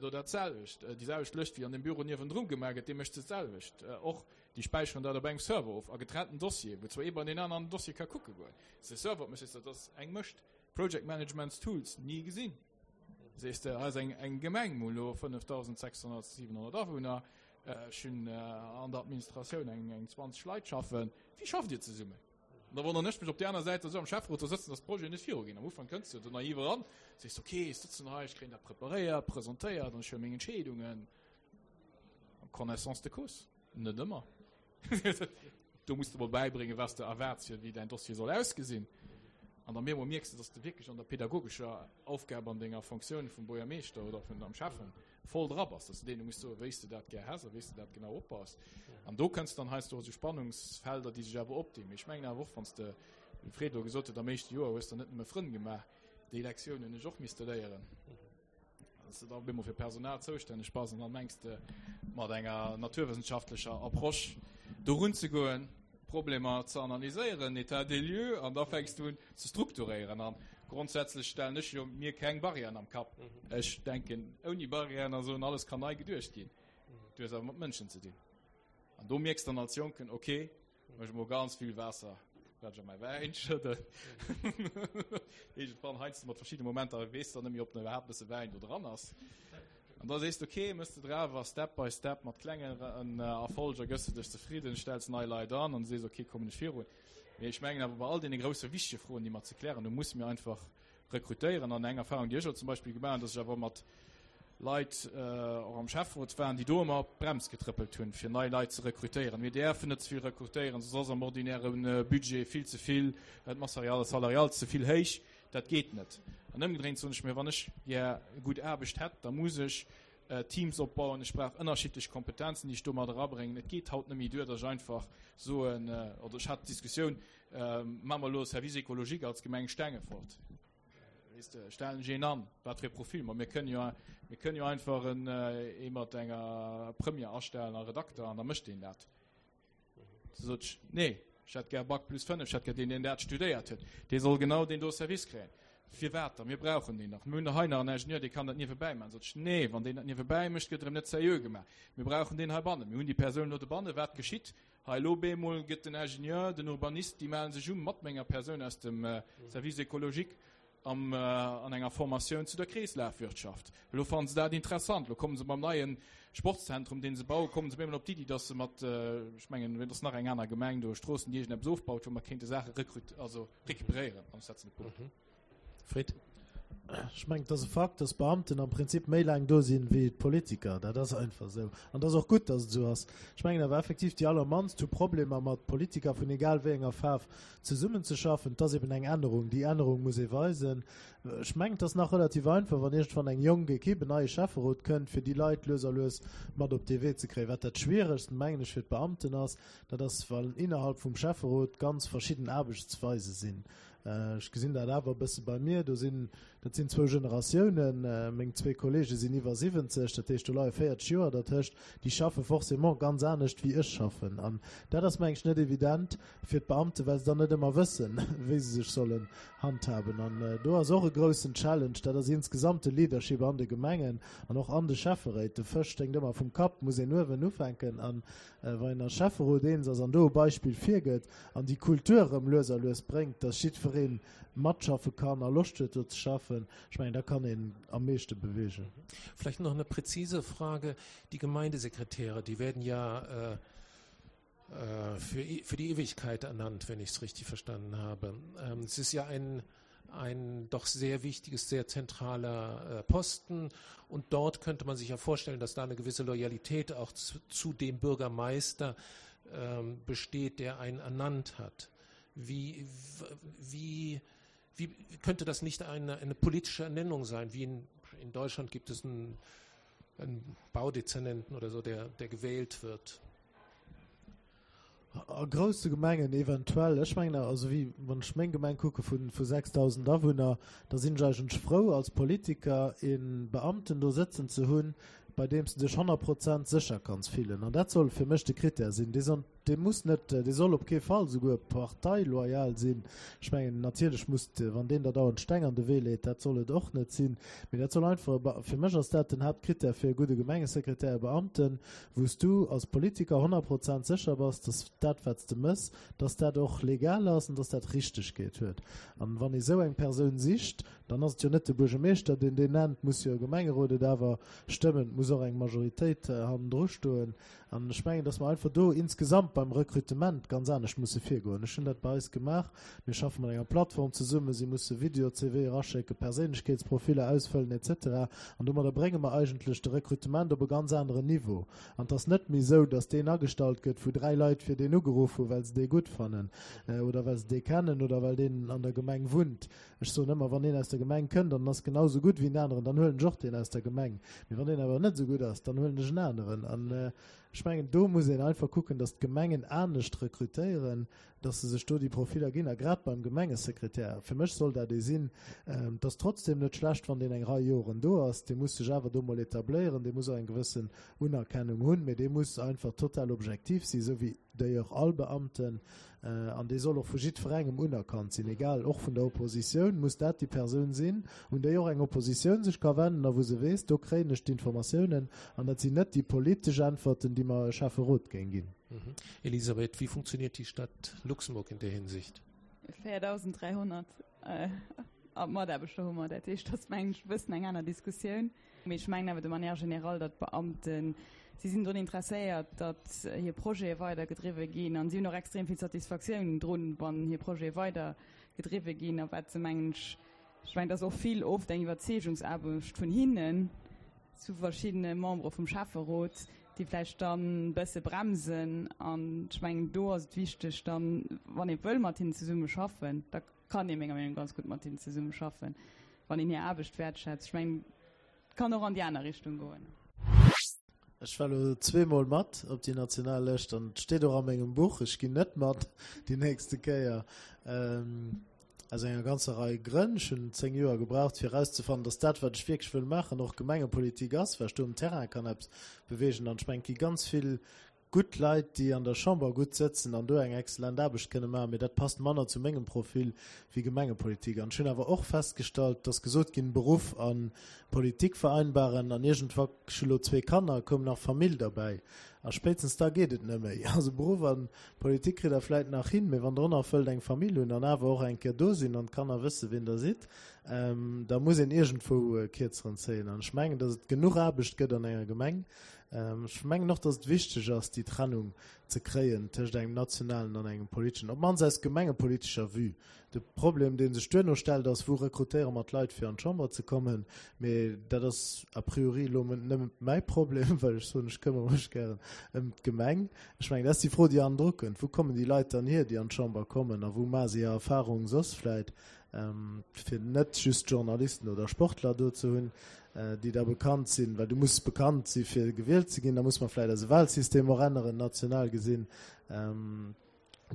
do dat selwecht, déi selwecht Lëscht wéi an dem Büro niewendru gemaach gëtt, dee mécht se d'selwecht och. Déi späicheren dat op engem Server of, a getrennten Dossieren, wou zwar ee bei deen aneren Dossier ka kucke goen. Se Server op mécht, sees de, dat ass eng Mëscht. Project Management Tools, ni gesinn. Sees de, hei ass eng, eng Gemeng, mir hu lo 5.600, 700 Awunner, ech hunn an der Administratioun eng, eng 20 Leit schaffen. Wéi schafft Dir zesummen? An da wonneren ech mech op där aner Säit, dass ech am Schäfferot do sëtzen, dass d'Projeten net viruginn. Am Ufank kënns du do naiv eran, sees, ok, ech sëtzen hei, ech kréien dat preparéiert, presentéiert an ech huele meng Entscheedungen en connaissance de cause. Net ëmmer. Do muss de mol bäibréngen, wat s de erwaarts, fir wéi däin Dossier soll ausgesinn. An dann bemol mierks de, dass de wierklech an der pädagogescher Aufgab an denger Fonctioun vum Buergermeeschter oder vun am Schäffen voll dra bass, dass de deene muss soen, wéi s de dat gär häss a wéi s de dat genau opbaus. An do kënns dann heiansdo esou Spannungsfelder, déi sech awer opdinn. Mee ech mengen awer och, wann s de, wéi de Fred elo gesot huet, am éischte Joer hues de net nëmme Frënn gemaach, déi Lektioun hunn ech och misste léieren, dass de da op eemol fir Personal zoustänneg bass an da mengs de mat enger naturwëssenschaftlecher Approche dorun ze goen, Problemer ze analyséieren, État des lieux, an da fänks du un ze strukturéieren. An grondsätzlech stellen ech jo mir keng Barrièren am Kapp. Ech denken, ouni Barrièren a sou, alles kann nei geduecht ginn. Du hues awer mat Mënschen ze dinn. An do mierks dann als Jonken, okay, mech mol ganz vill Waasser, wat ech a mäi Wäin schëdden. Iergendwann heiansdo mat verschiddene Momenter weess de dann net méi, ob nach iwwerhaapt e bësse Wäin do dran ass. An da sees de, ok, mëss de drauf a Step by Step mat klengen Erfolger gëss de dech zefridden, stells nei Leit an an sees, ok, kommen ech virun. Mee ech mengen awer bei all deene grousse wichtege Froen, déi mer ze klären hunn, musse mir einfach rekrutéieren. An eng Erfahrung, déi ech elo zum Beispill gemaach hunn, dass ech awer mat Leit och am Schäfferot waren, déi do ëmmer op d'Brems getrëppelt hunn, fir nei Leit ze rekrutéieren. Mir däerfen net ze vill rekrutéieren, soss ass am ordinäre Budget vill ze vill, d'Masse salariale ze vill héich. Dat geet net. An ëmgedréint soen ech mir, wann ech gär gutt Aarbecht hätt, da muss ech Teams opbauen, ech brauch ënnerschiddlech Kompetenzen, déi ech do mat erabréngen. Et geet haut net méi duer, datt ech einfach soen, oder ech hat d'Diskussioun, Maache mer elo e Service écologique als Gemeng Stengefort? Weess de, stellen ech een an, wat fir e Profil? Ma mir kënnen jo, mir kënnen jo einfach en, ee mat enger Première astellen a Redakter an da mécht deen dat. Du sot ech, nee, ech hätt gär Bac plus 5, ech hätt gär deen, deen dat studéiert huet. Dee soll genau deen do Service kréien. Firwat da? Mir brauchen deen nach. Mir hunn der hei nach en Ingenieur, dee kann dat niewebäi maachen. Sot ech, nee, wann deen dat niewebäi mécht, gëtt erëm net seriö gemaach. Mir brauchen deen heibannen. Mir hunn déi Persoun elo dobannen. Wat geschitt hei elo? Bemol gëtt den Ingenieur, den Urbanist, déi mellen sech u mat menger Persoun aus dem Service écologique am an enger Formatioun zu der Kreeslafwirtschaft. Elo fannen se dat interessant. Elo kommen se mam neie Sportszentrum, deen se bauen, kommen se op eemol op d'Iddi, dass se mat, ech mengen, et ass nach eng aner Gemeng do, Stroossen, déi iergendeppes ofbaut, wou mer kéinte Saache rekrut-, also recuperéieren. An ech setzen e Punkt. Fred. Ech mengen, et ass e Fakt, dass d'Beamten am Prinzip méi laang do sinn, wéi d'Politiker. Dat ass einfach esou. An et ass och gutt, dass et esou ass. Ech mengen awer effektiv, déi allermannst hu Problemer mat Politiker vun egal wéi enger Faarf zesummenzeschaffen. Et ass eben eng Ännerung. Déi Ännerung muss ee weisen. Ech mengen, et ass nach relativ einfach, wann iergendwann eng jonk Ekipp, en neie Schäfferot kënnt, fir déi Leit lues a lues mat op dee Wee ze kréien. Wat dat Schwieregst, mengen ech, fir d'Beamten ass, dat ass, wann innerhalb vum Schäfferot ganz verschidden Aarbechtsweise sinn. Ech gesinn dat awer e bësse bei mir, do sinn, dat sinn zwou Generatiounen, meng zwee Kollege sinn iwwer 70, dat heescht do leie 40 Joer dertëscht, déi schaffe forcément ganz anescht wéi ech schaffen. An dat ass meng ech net evident fir d'Beamten, well se dann net ëmmer wëssen, wéi se sech sollen handhaben. An do ass och e groussen Challenge, dat ass insgesamt de Leadership an de Gemengen an och an de Schäfferéit. De Fësch sténkt ëmmer vum Kapp, muss een uewen ufänken. An Wann een als Schäfferot eens ass an do e Beispill virgëtt an déi Kultur erëm lues a lues bréngt, dass jiddweree matschaffe kann a Loscht huet do ze schaffen, ech mengen, da kann een am meeschte beweegen. Vielleicht noch eine präzise Frage. Die Gemeindesekretäre, die werden ja für, für die Ewigkeit ernannt, wenn ich es richtig verstanden habe. Ähm, es ist ja ein, ein doch sehr wichtiges, sehr zentraler äh, Posten. Und dort könnte man sich ja vorstellen, dass da eine gewisse Loyalität auch zu, zu dem Bürgermeister ähm, besteht, der einen ernannt hat. Wie, wie, wie könnte das nicht eine, eine politische Ernennung sein? Wie in, in Deutschland gibt es einen, einen Baudezernenten oder so, der, der gewählt wird. A grousse Gemengen eventuell. Ech mengen awer, also wéi wann ech meng Gemeng kucke vu 6.000 Awunner, da sinn ech eigentlech frou als Politiker ee Beamten do sëtzen ze hunn, bei deem s de dech 100 Prozent sécher kanns fillen. An dat soll fir mech de Critère sinn. Dee soll, dee muss net, dee soll op kee Fall souguer parteiloyal sinn. Ech mengen, natierlech muss, wann deen der dauernd Steng an de Wee leet, dat soll et och net sinn. Mee dat soll einfach e, fir mech ass dat den Haaptcritère fir e gudde Gemengesekretär, e Beamten, wou s du als Politiker 100 Prozent sécher bass, dass dat, wat s de mëss, dass dat och legal ass an dass dat Richtegkeet huet. An wann ee sou eng Persoun sicht, dann ass et jo net de Buergermeeschter, deen deen nennt, muss jo e Gemengerot et awer stëmmen, et muss och eng Majoritéit hannendru stoen. An ech mengen, dass mer einfach do insgesamt beim Rekrutement ganz anescht musse virgoen. Ech hunn dat bei eis gemaach. Mir schaffe mat enger Plattform zesummen. Si musse Video-CVe eraschécken, Perséinlechkeetsprofiller ausfëllen et cetera. An domadder brénge mer eigentlech de Rekrutement op e ganz aneren Niveau. An et ass net méi esou, dass deen agestallt gëtt, wou dräi Leit fir deen ugeruff hunn, well se dee gutt fannen oder well se dee kennen oder well deen an der Gemeng wunnt. Ech soen ëmmer, wann een aus der Gemeng kënnt an en ass genau esou gutt wéi en aneren, dann huelen ech och deen aus der Gemeng. Mee wann deen awer net esou gutt ass, dann huelen ech en aneren. An ech mengen, do muss een einfach kucken, datt d'Gemengen anescht rekrutéieren, datt se sech do déi Profiller ginn. A grad beim Gemengesekretär, fir mech soll dat ee sinn, et ass trotzdem net schlecht, wann deen eng Rei Joren do ass, dee muss sech awer do mol etabléieren, dee muss och eng gewëssen Unerkennung hunn, mee dee muss einfach total objektiv sinn, esou wéi d'ailleurs all Beamten, an dee soll och vu jiddwerengem unerkannt sinn, egal, och vun der Oppositioun muss dat déi Persoun sinn, un déi och eng Oppositioun sech ka wenden a wou se weess, do kréien ech d'Informatiounen an dat sinn net déi politesch Äntwerten, déi mer e Schäfferot géing ginn. Elisabeth, wie funktioniert die Stadt Luxemburg in der Hinsicht? 4.300 Mataarbechter hu mer, dat heescht, dat ass mengen ech e bëssen eng aner Diskussioun. Mee ech mengen awer de manière générale, datt d'Beamten, si sinn drun interesséiert, datt hir Projete weidergedriwwe ginn an si hunn och extrem vill Satisfaktioun drun, wann hir Projete weidergedriwwe ginn. A wat se, mengen ech, ech mengen, et ass och vill oft eng Iwwerzeegungsaarbecht vun hinnen zu verschiddene Membere vum Schäfferot, déi vläicht dann e bësse bremsen. An ech mengen, do ass et wichteg dann, wann ee wëll mat hinnen zesummeschaffen, da kann ee menger Meenung ganz gutt mat hinnen zesummeschaffen, wann een hir Aarbecht wäertschätzt. Ech mengen, et kann och an déi aner Richtung goen. Ech war elo zweemol mat op déi national Lëscht an et steet och a mengem Buch, ech ginn net mat déi nächste Kéier, aus enger ganzer Rei Grënn. Ech hunn 10 Joer gebraucht, fir erauszefannen, datt dat, wat ech wierklech wëll maachen, och Gemengepolitik ass, well ech do um Terrain kann eppes beweegen. An ech mengen, et gi ganz vill gutt Leit, déi an der Chamber gutt sëtzen an do eng exzellent Aarbecht kënne maachen, mee dat passt manner zu mengem Profil wéi Gemengepolitik. An ech hunn awer och festgestallt, et ass gesot ginn, Beruff a Politik vereinbaren, an iergendwa, ech hu lo zwee Kanner, koum nach Famill derbäi, a spéitstens da geet et net méi. Also Beruff a Politik kritt Der vläit nach hin, mee wann Der och nach wëllt eng Famill hunn an awer och eng Kéier do sinn an d'Kanner wësse wien Der sidd, da muss een iergendwou e Kierzeren zéien. An ech mengen, datt et genuch Aarbecht gëtt an enger Gemeng, Ech mengen och, datt et wichteg ass, déi Trennung ze kréien tëscht engem nationalen an engem politeschen, op d'mannst aus gemengepolitescher Vue. De Problem, dee sech duerno stellt, ass, Wou rekrutéiere mer d'Leit, fir an d'Chamber ze kommen? Mee dat ass a priori elo nëmme mäi Problem, well ech soen, ech këmmere mech gären ëm d'Gemeng. Ech mengen, dat ass déi Fro, déi hannendru kënnt, Wou kommen déi Leit dann hier, déi an d'Chamber kommen, a wou maache se hir Erfahrung soss vläicht? fir net just Journalisten oder Sportler do ze hunn, déi da bekannt sinn, well du muss bekannt si fir gewielt ze ginn, da muss mer vläicht eise Wahlsystem och änneren, national gesinn.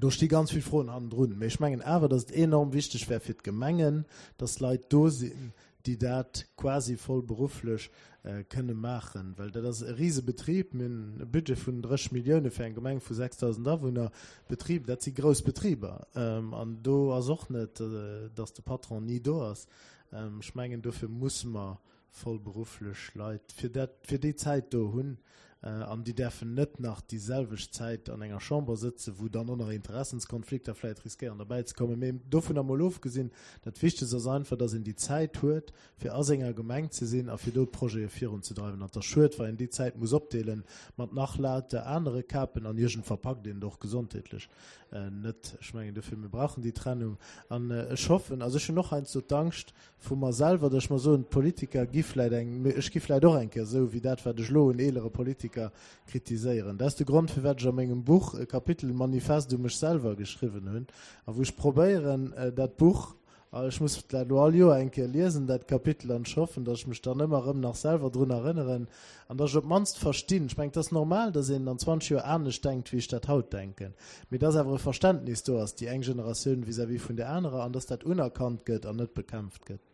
Do sti ganz vill Froen hannendrun. Mee ech mengen awer, datt et enorm wichteg wär fir d'Gemengen, datt Leit do sinn, déi dat quasi vollberufflech kënne maachen, well dat ass e Risebetrib. Mir hunn e Budget vun 30 Millioune fir eng Gemeng vu 6.000 Awunner. Betrib, dat si grouss Betriber. An do ass och net, datt de Patron ni do ass. Ech mengen, dofir musse mer vollberufflech Leit fir dat, fir déi Zäit do hunn, an déi däerfen net nach déi selwecht Zäit an enger Chamber sëtzen, wou dann och nach Interessenskonflikter vläicht riskéieren derbäi ze kommen. Mee dovunner mol ofgesinn, dat Wichtegst ass einfach, datt een déi Zäit huet, fir a senger Gemeng ze sinn a fir do d'Projete virunzedreiwen. An et ass schued, wa een déi Zäit muss opdeele mat nach lauter anere Kapen an iergend verpackt een et och gesondheetlech net. Ech mengen dofir, mir brauchen déi Trennung an ech hoffen, also ech hunn och heiansdo d'Angscht, vu mer selwer, datt ech mer soen, d'Politiker gi vläit eng, mee ech gi vläit och eng Kéier esou wéi dat, wat ech elo un eelere Politiker kritiséieren. Dat ass de Grond, firwat ech a mengem Buch e Kapitel Manifest u mech selwer geschriwwen hunn a wou ech probéieren, dat Buch, ech muss dat elo all Joer eng Kéier liesen, dat Kapitel, an ech hoffen, datt ech mech dann ëmmer erëm nach selwer drun erënneren an datt ech op d'mannst verstinn. Ech mengen, et ass normal, datt een an 20 Joer anescht denkt, wéi ech dat haut denken. Mee dass awer e Verständnis do ass, déi eng Generatioun vis-à-vis vun där anerer, an dass dat unerkannt gëtt an net bekämpft gëtt.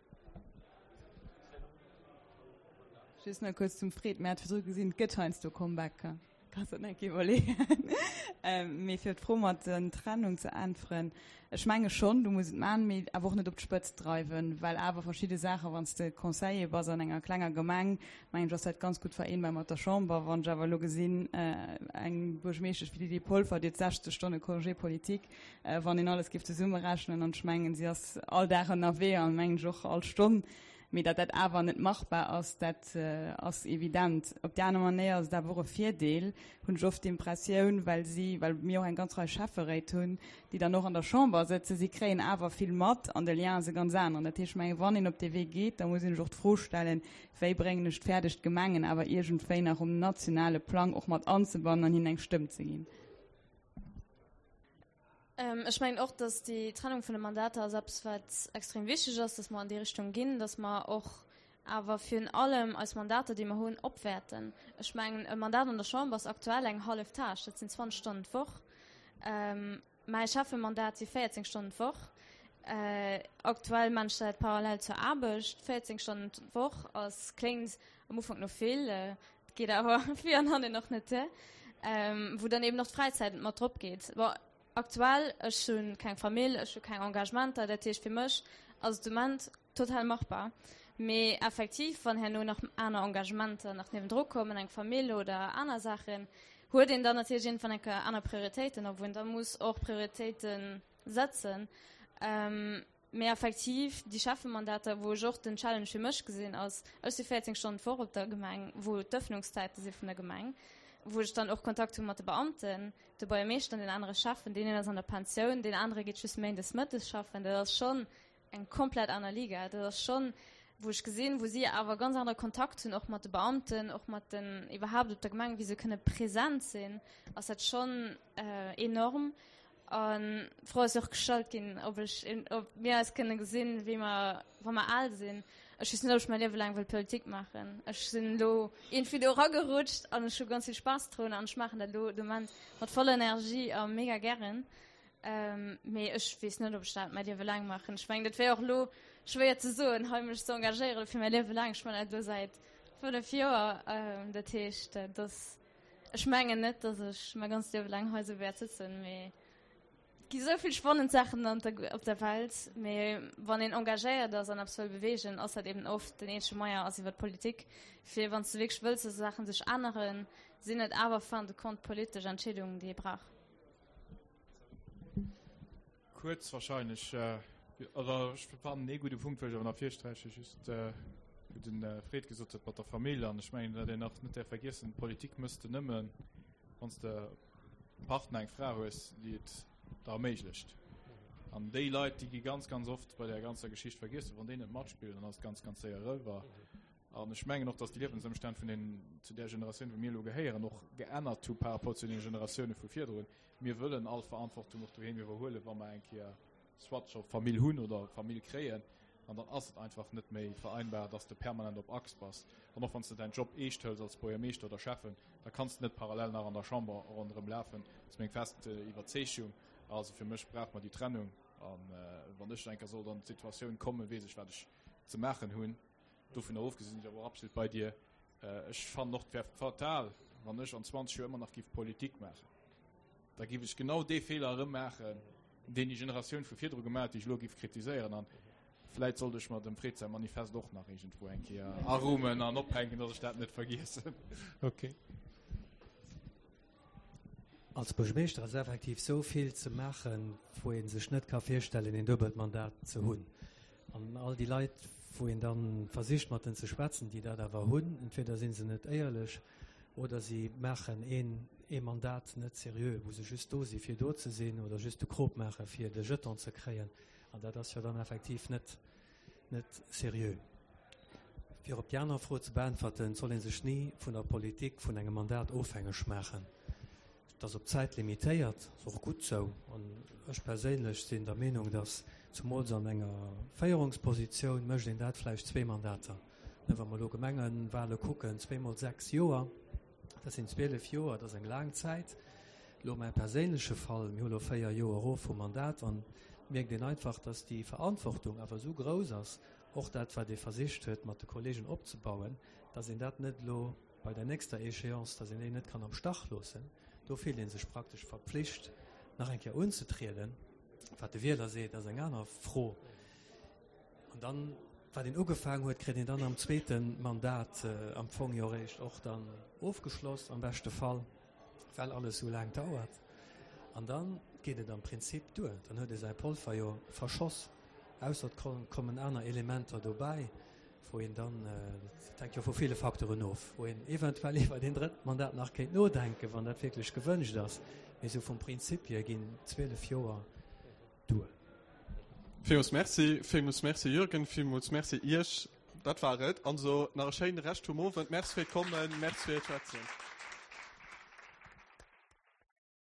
Just nach kuerz zum Fred, Mir hat virdru gesinn, et gëtt heiansdo Comebacker. Kanns der net iwwerleeën. Mee fir op d'Fro mat der Trennung ze äntweren, Ech menge schonn, du muss et maachen, mee awer och net op d'Spëtzt dreiwen, well awer verschidde Saachen, wann s de Conseiller bass an enger klenger Gemeng, mengen ech, ass dat ganz gutt vereenbar mat der Chamber. Wann ech awer elo gesinn, eng Buergermeeschtesch wéi d'Lydie Polfer, déi huet 60 Stonne Congé politique, wann een alles géif zesummerechnen, an ech mengen, si ass all Dag ënnerwee an mengen ech och all Stonn, Mee datt dat awer net machbar ass, dat ass evident. Op déi aner Manéier ass et awer och e Virdeel, hunn ech oft d'Impressioun, well si, well mir och eng ganz Rei Schäfferéit hunn, déi dann och an der Chamber sëtzen, si kréien awer vill mat an de Lien ass e ganz aneren. Dat heescht, ech mengen, wann een op dee Wee geet, da muss een sech och d'Fro stellen, Wéi bréngen ech et fäerdeg, d'Gemengen awer iergendwéi nach um nationale Plang och mat anzebannen an hinnen eng Stëmm ze ginn? Ech mengen och, dass déi Trennung vun de Mandater ass eppes, wat extrem wichteg ass, dass mer an déi Richtung ginn, dass mer och awer virun allem eis Mandater, déi mer hunn, opwäerten. Ech mengen, e Mandat an der Chamber ass aktuell eng hallef Tâche, dat sinn 20 Stonnen d'Woch. Mäi Schäffemandat si 14 Stonnen d'Woch. Aktuell maan ech dat parallel zur Aarbecht. 14 Stonnen d'Woch ass, kléngt am Ufank no vill, et geet awer vir an hannen och net duer, wou dann eben och d'Fräizäit mat drop geet. Bon, aktuell, ech hu keng Famill, ech hu keng Engagementer, dat heescht fir mech ass et de Moment total machbar. Mee effektiv, wann herno nach aner Engagementer nach niewendru kommen, eng Famill oder aner Saachen, huet een dann natierlech iergendwann eng Kéier aner Prioritéiten, a wou een da muss och Prioritéite setzen. Mee effektiv, déi Schäffemandater, wou ech och den Challenge fir mech gesinn, ass, ech si 14 Stonnen d'Woch op der Gemeng, wou d'Ëffnungszäite si vun der Gemeng, wou ech dann och Kontakt hu mat de Beamten, de Buergermeeschter an den anere Schäffen. Deen een ass an der Pensioun, deen anere geet just méindes mëttes schaffen. Dat ass schonn eng komplett aner Liga. Dat ass schonn, wou ech gesinn, wou si awer ganz anere Kontakt hunn, och mat de Beamten, och mat den, iwwerhaapt op der Gemeng, wéi se kënne present sinn, ass dat schonn enorm. An d'Fro ass jo och gestallt ginn, ob ech, ob mir eis kënne gesinn, wéi mer, wa mer al sinn. Ech weess net, ob ech mäi Liewe laang wëll Politik maachen. Ech sinn elo iergendwéi do eragerutscht an ech hu ganz vill Spaass drun an ech maachen dat elo de Moment mat voller Energie a mega gären. Mee ech weess net, ob ech dat mäi Liewe laang maachen. Ech mengen, dat wär och elo schwéier ze soen, hei mech ze engagéieren fir mäi Liewe laang. Ech maachen dat elo säit 5 Joer. Dat heescht, dat ass. Ech mengen net, dass ech mäi ganzt Liewe laang hei sou wäert sëtzen, mee et gi sou vill spannend Saachen an der, op der Welt. Mee wann een engagéiert ass an eppes wëll beweegen, ass dat eben oft den eenzege Moyen ass iwwer d'Politik. Fir wann s de wierklech wëlls, dass Saachen sech änneren, sinn et awer fin de compte politesch Entscheedungen, déi ee brauch. Kuerz wahrscheinlech. Oder ech fannen ee gudde Punkt wëll ech awer nach virsträichen, just wou den Fred gesot huet mat der Famill. An ech mengen, wat een nach net däerf vergiessen, Politik mëss de nëmmen, wann s de e Partner, eng Fra hues, déi et der erméiglecht. An déi Leit, déi gi ganz, ganz oft bei där ganzer Geschicht vergiessen. Wann déi net matspillen, dann ass et ganz, ganz séier eriwwer. An ech mengen och, dass déi Liewensëmstänn vun den, zu där Generatioun, wou mir elo gehéieren, och geännert hu par rapport zu den Generatioune vu virdrun. Mir wëllen all Verantwortung och doheem iwwerhuelen, wa mer eng Kéier soit scho Famill hunn oder Famill kréien. An dann ass et einfach net méi vereinbar, dass de permanent op Achs bass. An och wann s de däin Job eescht hëls als Buergermeeschter oder Schäffen, da kanns de net parallel nach an der Chamber ronderëm lafen. Dat ass meng fest Iwwerzeegung. Also fir mech brauche mer déi Trennung. An wann ech eng Kéier sollt an d'Situatioun kommen, weess ech, wat ech ze maachen hunn. Dovunner ofgesinn sinn ech awer och absolut bei dir. Ech fannen och, et wär fatal, wann ech an 20 Joer ëmmer nach giff Politik maachen. Da giff ech genau dee Feeler erëm maachen, deen déi Generatioun vu virdru gemaach huet, déi ech elo giff kritiséieren. An vläit sollt ech mer dem Fred säi Manifest och nach iergendwou eng Kéier arummen an ophänken, datt ech dat net vergiessen. Okay. Als Buergermeeschter ass effektiv sou vill ze maachen, wou ee sech net ka virstellen, een duebelt Mandat ze hunn. An all déi Leit, wou een da versicht mat en ze schwätzen, déi dat awer hunn, entweder si se net éierlech oder si maachen een ee Mandat net seriö, wou se just do si fir do ze sinn oder just de Krop maache fir de Jeton ze kréien. An dat ass jo dann effektiv net net seriö. Fir op déi aner Fro ze beäntwerten, et soll ee sech ni vun der Politik, vun engem Mandat ofhängeg maachen. Et ass op d'Zäit limitéiert, ass och gutt sou. An ech perséinlech sinn der Meenung, datt zumools an enger Féierungspositioun mécht een dat vläicht zwee Mandater. Wa mer elo Gemengewahle kucken, zweemol sechs Joer, dat sinn 12 Joer, dat ass eng laang Zäit. Elo mäi perséinleche Fall, mir hu lo véier Joer erof vum Mandat an et mierkt een einfach, datt déi Verantwortung awer esou grouss ass, och dat wat ee versicht huet mat de Kollegen opzebauen, datt een dat net elo bei der nächster Échéance, datt een déi net kann am Stach loossen. Do fillt ee sech praktesch verpflicht nach eng Kéier unzetrieden. Wat de Wieler seet, ass eng aner Fro. An dann, wat een ugefaangen huet, kritt een dann am zweete Mandat am Fong jo eréischt och dann ofgeschloss, am beschte Fall, well alles esou laang dauert. An dann geet et am Prinzip duer. Dann huet ee säi Polver jo verschoss, ausser et kommen aner Elementer dobäi, wou een dann, dat hänkt jo vu ville Facteuren of, wou een eventuell iwwert een drëtt Mandat nach kéint nodenken, wann dat wierklech gewënscht ass. Mee esou vum Prinzip hier ginn 12 Joer duer. Villmools Merci, villmools Merci Jürgen, villmools Merci Iech. Dat war et. Also nach e schéine Rescht vum Owend. Merci fir d'Kommen, Merci fir d'Schwätzen.